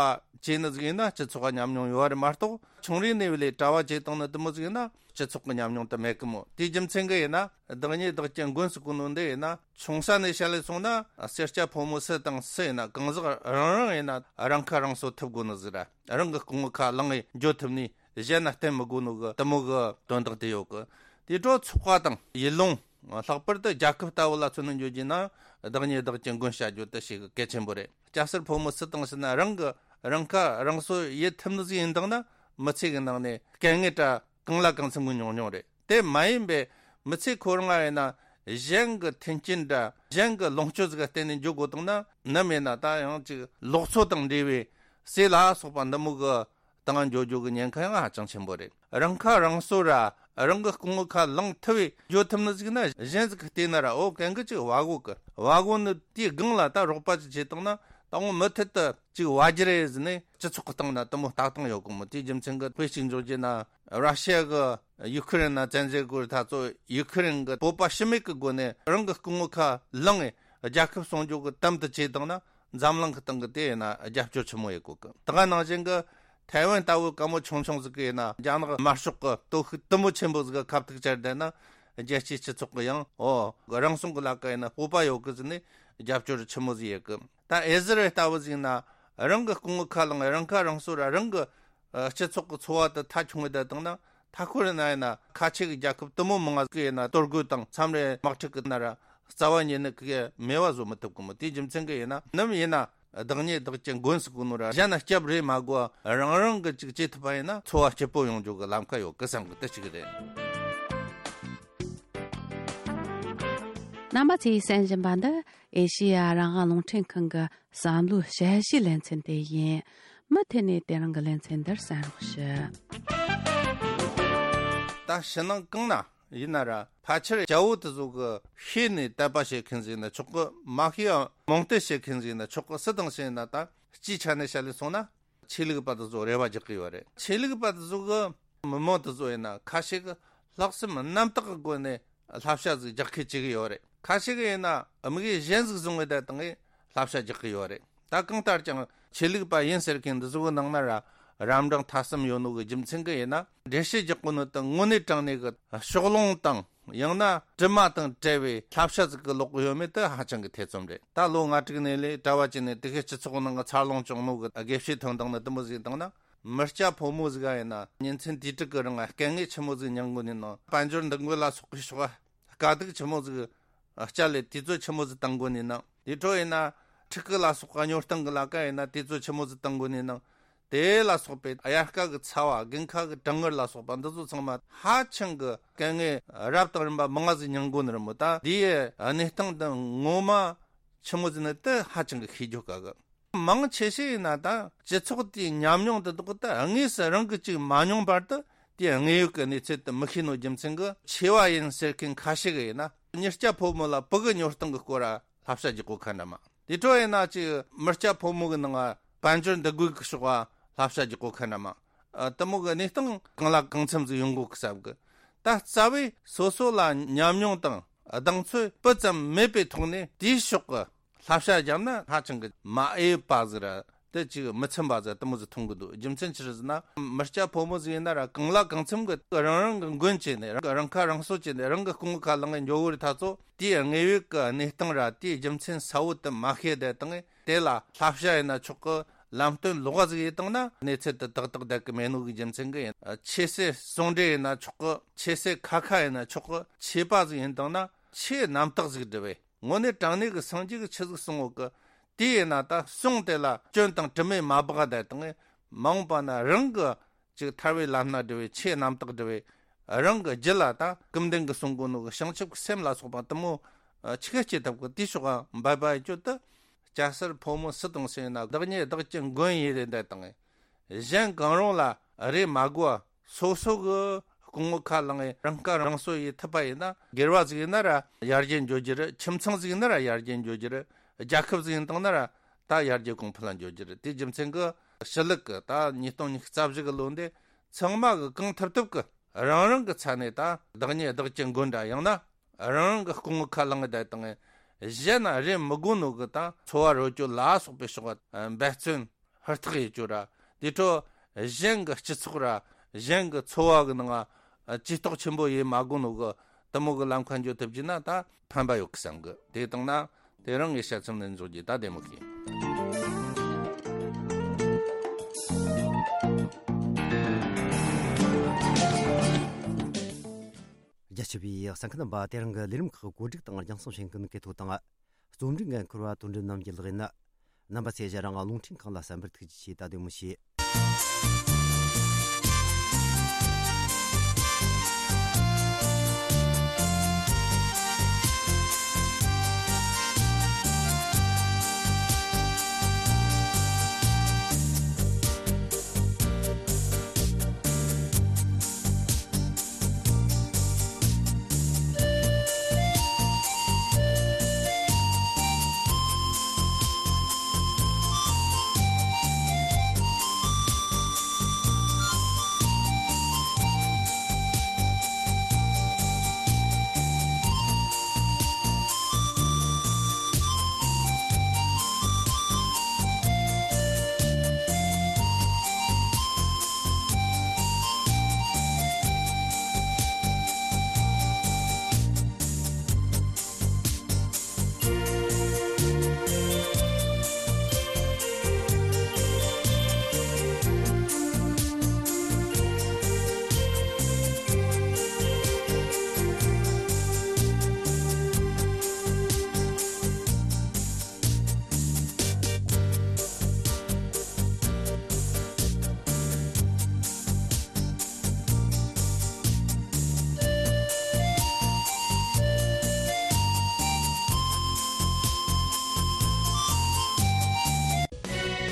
བྱས་ནི་ཟིག་ཡིན་ན་སྤྱི་ཚོགས་ཀྱི་ཉམས་མྱོང་ཡོད་རེད་མ་གཏོགས། ཆུང་རིང་ནས་བ་ལས་གྲྭ་བ་བྱས་བཏང་ནི་དུ་མོ་ཟིག་ཡིན་ན་སྤྱི་ཚོགས་ཀྱི་ཉམས་མྱོང་དེ་མེད་གི་མོ། དེའི་རྒྱུ་མཚན་གི་ཡིན་ན་བདག་ཉིད་བདག་གི་མགོན་ཟེར་གོ་ནོ་འདི་ཡིན་ན་ཆུང་ས་ནས་བཤད་ལེ་སོང་ན་སེར་སྐྱ་ཕོ་མོ་སུ་དང་སུ་ཡིན་ན་གང་ཟག་རང་རང་ཡིན་ན་རང་ཁ་རང་གསོ་ཐུབ་དགོས་ནི་ཟིག་ར། རང་གི་སྐུ་ངོ་ཁ་ལངས་ངེ་འགྱོ་ཐུབ་ནི། གཞན་ན་བརྟེན་མི་དགོས་ནོ་གི་དུ་མོ་གི་དོན་དག་དེ་ཡོད་གི། དེ་འཕྲོ་ཚོགས་པ་དང་ཡུལ་ལུང་། ལྷག་པར་དུ་རྒྱལ་ཁབ་ལྟ་བུ་ལ་མཚོན་ནས་འཇོག་རྒྱུ་ན་བདག་ཉིད་བདག་གི་མགོན་བྱ་རྒྱུ་དེ་ཞིག་གལ་ཆེན་པོ་རེད། སྐྱ་སེར་ཕོ་མོ་སུ་དང་སུ་ན་རང་གི་རང་ཁ་རང་གསོ་ཡེད་ཐུབ་ནི་ཟིག་ཡིན་དང་ན་མི་ཚེ་གི་ནང་ནས་དཀའ་ངལ་དྲ་གང་ལ་གང་འཚམ་གི་མྱོང་མྱོང་རེད། དེ་མ་ཡིན་པའི་མི་ཚེ་ཁོ་རང་ང་ཡིན་ན་གཞན་གི་མཐུན་རྐྱེན་དྲ་གཞན་གི་ལོངས་སྤྱོད་ཟིག་ག་བརྟེན་ནས་འཇོག་དགོས་དང་ན་ནམ་ཡིན་ན་ད་ཡང་ཅིག་ལོག་འཚོ་དང་འབྲེལ་བའི་ཟས་ལ་སོགས་པ་འདི་མོ་གི་དང་འགྱོ་རྒྱུ་གི་ཉེན་ཁ་ཡང་ཧ་ཅང་ཆེན་པོ་རེད། རང་ཁ་རང་གསོ་ར་རང་གི་སྐུ་ངོ་ཁ་ལངས་ཐུབ་བས་འགྱོ་ཐུབ་ནི་ཟིག་ན་གཞན་ཟིག་གི་བལྟས་ན་ར་འོ་གན་གི་ཅིག་བ་གོ་གི་བ་གོ་ནི་དེའི་སྒང་ལ་ད་རོགས་པ་ཅིག་བྱེད་བཏང་ན་ད་འོ་མུ་མཐུད་དུ་ཅིག་བ་རྒྱུ་རེད་ཟེར་ནས་སྤྱི་ཚོགས་གི་སྟེང་ན་དུ་མོ་ལྟ་སྟངས་ཡོད་གི་མོ། དེའི་རྒྱུ་མཚན་གི་དཔེ་ཅིག་འཇོག་རྒྱུ་ན་ར་ཤི་ཡ་གི་ཡུ་ཁུ་རེན་ན་བཙན་འཛུལ་དགོས་ད་ཚོ་ཡུ་ཁུ་རེན་གི་བོད་པ་ཤི་མེད་གི་སྒོ་ནས་རང་གི་སྐུ་ངོ་ཁ་ལངས་ངེ་རྒྱལ་ཁབ་སྲུང་སྐྱོབ་གི་དམ་དུ་བྱས་བཏང་ན། འཛམ་གླིང་གི་སྟེང་གི་དེ་ཡིན་ན་རྒྱབ་སྐྱོར་ཆེན་མོ་ཡེད་གོ་གི། ད་ག་ནང་བཞིན་གི་ཐའེ་ཝན་ལྟ་བུ་སྐམ་པོ་ཆུང་ཆུང་ཟིག་གི་ཡིན་ན་རྒྱ་ནག་དམར་ཤོག་གི་སྟོབས་ཤུགས་དུ་མོ་ཆེན་པོ་ཟིག་གི་ཁ་ཐུག་བཅར་བསྡད་ན་རྒྱལ་སྤྱིའི་སྤྱི་ཚོགས་གི་ཡང་འོ་རང་སྲུང་གི་ལ་ཀ་ཡིན་ན་སྤོབས་པ་ཡོད་གི་ཟེར་ནས་རྒྱབ་སྐྱོར་ཆེན་མོ་ཟིག་ཡེད་གི། ད་ཨེ་ཟི་རལ་ལྟ་བུ་ཟིག་ཡིན་ན་རང་གི་སྐུ་ངོ་ཁ་ལངས་རང་ཁ་རང་གསོ་ར་རང་གི་སྤྱི་ཚོགས་གི་འཚོ་བ་དེ་མཐའ་ཆུང་བའི་བསྡད་བཏང་ན། མཐའ་འཁོར་ན་ཡིན་ན་ཁ་ཆེ་གི་རྒྱལ་ཁབ་དུ་མོ་མང་ང་གི་ཡིན་ན་གཏོར་རྒོལ་དང་མཚམས་རེ་དམག་འཁྲུག་གི་ན་ར་རྩ་བ་ཉིད་ནས་གི་མེད་པ་བཟོ་མི་ཐུབ་གི་མོ། དེའི་རྒྱུ་མཚན་གི་ཡིན་ན་ནམ་ཡིན་ན་བདག་ཉིད་བདག་གི་མགོན་ཟེར་གོ་ནོ་ར་གཞན་ན་སྐྱབས་རེ་མ་དགོས་རང་རང་གི་ཅིག་བྱེད་ཐུབ་པ་ཡིན་ན་འཚོ་བ་སྐྱིད་པོ་ཡོང་རྒྱུ་གི་ལམ་ཁ་ཡོད་གི་བསམ་གི་དེ་ཅིག་རེད། རྣམ་པ་ཚོས་གསན་བཞིན་པ་འདི་ཨེ་ཤེ་ཡ་རང་དབང་རླུང་འཕྲིན་ཁང་གི་བསམ་བློའི་དཔྱད་གཞིའི་ལེ་ཚན་དེ་ཡིན། མུ་མཐུད་ནས་དེ་རིང་གི་ལེ་ཚན་འདིར་གསན་རོགས་ཞུ། ད་ཕྱི་ནང་གང་ན་ཡིན་ན་ར། ཕལ་ཆེར་རྒྱལ་པོ་དེ་ཚོ་གི་ཤེས་ནས་དད་པ་བྱེད་མཁན་ཟིག་ཡིན་ན་ཆོག་གི། མ་ཤེས་ཡང་རྨོངས་དད་བྱེད་མཁན་ཟིག་ཡིན་ན་ཆོག་གི། སུ་དང་སུ་ཡིན་ན། ད་སྤྱིའི་ཆ་ནས་བཤད་ལས་སོང་ན། ཆོས་ལུགས་པ་དེ་ཚོ་རེ་བ་རྒྱག་གི་ཡོད་རེད། ཆོས་ལུགས་པ་དེ་ཚོ་གི་མི་མང་དེ་ཚོ་ཡིན་ན་ཁ་ཤས་གི་ལྷག་བསམ་རྣམ་དག་གི་སྒོ་ནས་བསླབ་བྱ་ཟིག་རྒྱག་མཁན་བྱེད་གི་ཡོད་རེད། ཁ་ཤས་གི་ཡིན་ན་དམིགས་ཡུལ་གཞན་ཟིག་བཟུང་བའི་བསྡད་བཏང་གི་བསླབ་བྱ་རྒྱག་གི་ཡོད་རེད། ད་གང་ལྟར་ཀྱང་ཆོས་ལུགས་པ་ཡིན་ཟེར་མཁན་འདི་ཚོ་གི་ནང་ན་ར་རབ་འབྲིང་ཐ་གསུམ་ཡོད་ནོ་གི་རྒྱུ་མཚན་གི་ཡིན་ན། འགྲེལ་བཤད་རྒྱག་གོ་ནོ་དང་དངོས་གནས་དྲང་གནས་གི་ཕྱོགས་ལྷུང་དང་། ཡང་ན་དྲི་མ་དང་བྲལ་བའི་བསླབ་བྱ་ཟིག་གི་ལོག་གི་ཡོད་མེད་དེ་ཧ་ཅང་གི་ཐེ་ཚོམ་རེད། ད་ལོ་ལྔ་དྲུག་ནས་ལས་གྲྭ་བ་བྱས་ནས་དེ་གའི་སྤྱི་ཚོགས་ནང་གི་འཚར་ལོངས་བྱུང་ནོ་གི་དགེ་བཤེས་ཐོན་བཏང་ནི་དེ་མོ་ཟིག་བཏང་ན། མི་སྐྱ་ཕོ་མོ་ཟིག་ག་ཡིན་ན་ཉིན་མཚན་དུས་དྲུག་གི་རིང་ལ་སྐད་ངན་ཆི་མོ་ཟིག་མྱང་གོ་ནི་ནང་། དཔལ་འབྱོར་འདུ་འགོད་ལ་སོགས་པའི་ཕྱོགས་དཀའ་སྡུག་ཆི་མོ་ཟིག་སྤྱད་ལས་དུས་ཚོད་ཆི་མོ་ཟིག་བཏང་གོ་ནི་ནང་། དེ་འཕྲོ་ཡིན་ན་ཕྲུ་གུ་ལ་སོགས་པ་སྨྱོ་སྟངས་གི་ལ་ཀ་ཡིན་ན་དུས་ཚོད་ཆི་མོ་ཟིག་བཏང་གོ་ནི་ནང་། དེ་ལ་སོགས་པའི་དབྱར་ཁ་གི་ཚ་བ། དགུན་ཁ་གི་གྲང་ངར་ལ་སོགས་པ་འདི་ཚོ་ཚང་མ་ཧ་ཅང་གི་སྐད་ངན་རབ་དང་རིམ་པ་མང་ང་ཟིག་མྱང་གོ་ནི་རེད་མོ། ད་འདིའི་གནས་སྟངས་འདི་ངོ་མ་ཆི་མོ་ཟིག་ནི་དེ་ཧ་ཅང་གི་ཤེས་རྒྱུ་དཀའ་གི། མང་ཆེ་ཤོས་ཡིན་ན་ད་སྤྱི་ཚོགས་དེའི་ཉམས་མྱོང་དེ་དག་ད་དངོས་སུ་རང་གིས་ཅིག་མ་མྱོང་བར་དུ་དེའི་དངོས་ཡོད་ཀྱི་གནས་ཚུལ་དེ་མི་ཤེས་ནོ་རྒྱུ་མཚན་གི། ཆེ་བ་ཡིན་ཟེར་མཁན་ཁ་ཤས་གི་ཡིན་ན་མྱི་སྐྱ་ཕོ་མོ་ལ་བུ་གི་སྨྱོ་སྟངས་གི་སྐོར་ར་བསླབ་བྱ་རྒྱག་གོ་ཁ་འདྲ་མ། དེ་འཕྲོ་ཡིན་ན་ཅིག་མི་སྐྱ་ཕོ་མོ་གི་ནང་ང་དཔལ་འབྱོར་འདུ་འགོད་ཀྱི་ཕྱོགས་ལ་བསླབ་བྱ་རྒྱག་གོ་ཁ་འདྲ་མ། ཨ། དེ་མོ་གི་གནས་སྟངས་གང་ལ་གང་འཚམ་ཟིག་ཡོང་གོ་གི་བསམ་གི། ད་རྩ་བའི་སོ་སོ་ལ་ཉམས་མྱོང་དང་གདེང་ཚོད་སྤུ་ཙམ་མེད་པའི་ཐོག་ནས་དེའི་ཕྱོགས་ཀྱི་བསླབ་བྱ་བརྒྱབ་ན་ཧ་ཅང་གི་མ་འོས་པ་ཟིག་ར། དེ་ཅིག་མི་ཚིམ་པ་ཟིག་དེ་མོ་ཟིག་མཐོང་གི་འདུག་རྒྱུ་མཚན་ཅི་རེད་ཟེར་ན། མི་སྐྱ་ཕོ་མོ་ཟིག་ཡིན་ན་ར་གང་ལ་གང་འཚམ་གི་རང་རང་གི་མགོན་བྱས་ནས། རང་རང་ཁ་རང་གསོ་བྱས་ནས་རང་གི་རྐུན་ཁ་ལངས་ནས་འགྱོ་གི་རེད། ད་ཚོ་དེའི་དངོས་ཡོད་ཀྱི་གནས་སྟངས་ར་དེའི་རྒྱུ་མཚན་གསལ་བོ་དེ་མ་ཤེས་བསྡད་བཏང་། དེ་ལ་བསླབ་བྱ་ཡིན་ན་ཆོག་གི། ལམ་སྟོན་ལོགས་ཀ་ཟིག་ཡེད་བཏང་ན་གནས་ཚུལ་དེ་ཏག་ཏག་བསྡད་གི་མེད་ནོ་གི་རྒྱུ་མཚན་གི་ཡིན། ཆོས་སྲིད་ཟུང་འབྲེལ་ཡིན་ན་ཆོག་གི། ཆོས་སྲིད་ཁ་ཁ་ཡིན་ན་ཆོག་གི། ཆོས་པ་ཟིག་ཡིན་བཏང་ན་ཆོས་རྣམ་དག་ཟིག་འབྲི་བས། དངོས་གནས་དྲང་གནས་ཀྱི་སངས་རྒྱས་ཀྱིས་ཆི་ཟིག་གསུང་ཡོད་གི། དེ་ཡིན་ན་ད་གསུང་དེ་ལ་སྐྱོན་དང་དྲི་མས་མ་སྦགས་བསྡད་བཏང་། མ་འོངས་པ་ན་རང་གི་ཅིག་ཐར་བའི་ལམ་སྣ་བསྒྲུབ་པའི་ཆོས་རྣམ་དག་བསྒྲུབ་པའི་རང་གི་རྒྱུད་ལ་ད་སྐུ་མདུན་གྱིས་གསུང་གོ་ནོ་གི་བྱང་ཆུབ་ཀྱི་སེམས་ལ་སོགས་པ་དེ་མོ་ཆི་ག་སྐྱེ་ཐུབ་གི། དེའི་ཕྱོགས་འབད་པ་ཡེད་རྒྱུ་དེ། སྐྱ་སེར་ཕོ་མོ་སུ་དང་སུ་ཡིན་ན་བདག་ཉིད་བདག་གི་མགོན་ཡིན་རེ་བསྡད་བཏང་། གཞན་གང་རུང་ལ་རེ་མ་དགོས་པ། སོ་སོ་གི་རྐུན་ངོ་ཁ་ལངས་ནས་རང་ཁ་རང་གསོ་ཡེད་ཐུབ་པ་ཡིན་ན། སྒེར་བ་ཟིག་ཡིན་ན་ར་ཡར་རྒྱས་འགྱོ་རྒྱུ་རེད། ཁྱིམ་ཚང་ཟིག་ཡིན་ན་ར་ཡར་རྒྱས་འགྱོ་རྒྱུ་རེད། རྒྱལ་ཁབ་ཟིག་ཡིན་བཏང་ན་ར་ད་ཡར་རྒྱས་གོང་འཕེལ་ལ་འགྱོ་རྒྱུ་རེད། དེའི་རྒྱུ་མཚན་གི་ཕྱི་ལུགས་གི་ད་ཉིས་སྟོང་ཉི་ཤུ་རྩ་བཞི་གི་ལོ་འདི་ཚང་མ་གི་གང་ཐུབ་ཐུབ་གི་རང་རང་གི་ས་ནས་ད་བདག་ཉིད་བདག་གི་མགོན་འདྲ། ཡང་ན་རང་རང་གི་རྐུན་ངོ་ཁ་ལངས་བསྡད་བཏང་། གཞན་ན་རེ་མི་དགོས་ནོ་གི་ད་འཚོ་བ་རོལ་རྒྱུ་ལ་སོགས་པའི་ཕྱོགས་འབད་བརྩོན་ཧུར་ཐག་ཡེད་རྒྱུ་ར། དེ་འཕྲོ་གཞན་གྱི་སྤྱི་ཚོགས་ར་གཞན་གྱི་འཚོ་བ་གི་ནང་ང་ཇུས་གཏོགས་ཆེན་པོ་ཡེད་མ་དགོས་ནོ་གི་དེ་མོ་གི་ལམ་ཁ་འགྱོ་ཐུབ་རྒྱུ་ན་ད་ཕན་པ་ཡོད་གི་བསམ་གི། དེ་བཏང་ན་དེ་རིང་གི་དཔྱད་རྩོམ་ནི་འཇོག་རྒྱུ་ད་བདེ་མོ་གི། རྒྱ་ཆེ་བའི་གསན་མཁན་རྣམ་པ། དེ་རིང་གི་ལས་རིམ་ཁག་བཀོད་སྒྲིག་དང་རྒྱང་སྲིང་བྱེད་མཁན་གི་ཐོག་དང་། རྩོམ་སྒྲིག་འགན་འཁུར་བ་དོན་འགྲུབ་རྣམ་རྒྱལ་ལགས་ཡིན། རྣམ་པ་ཚོས་གཞན་རང་རླུང་འཕྲིན་ཁང་ལ་གསན་པར་ཐུགས་རྗེ་ཆེ། ད་བདེ་མོ་བྱོས།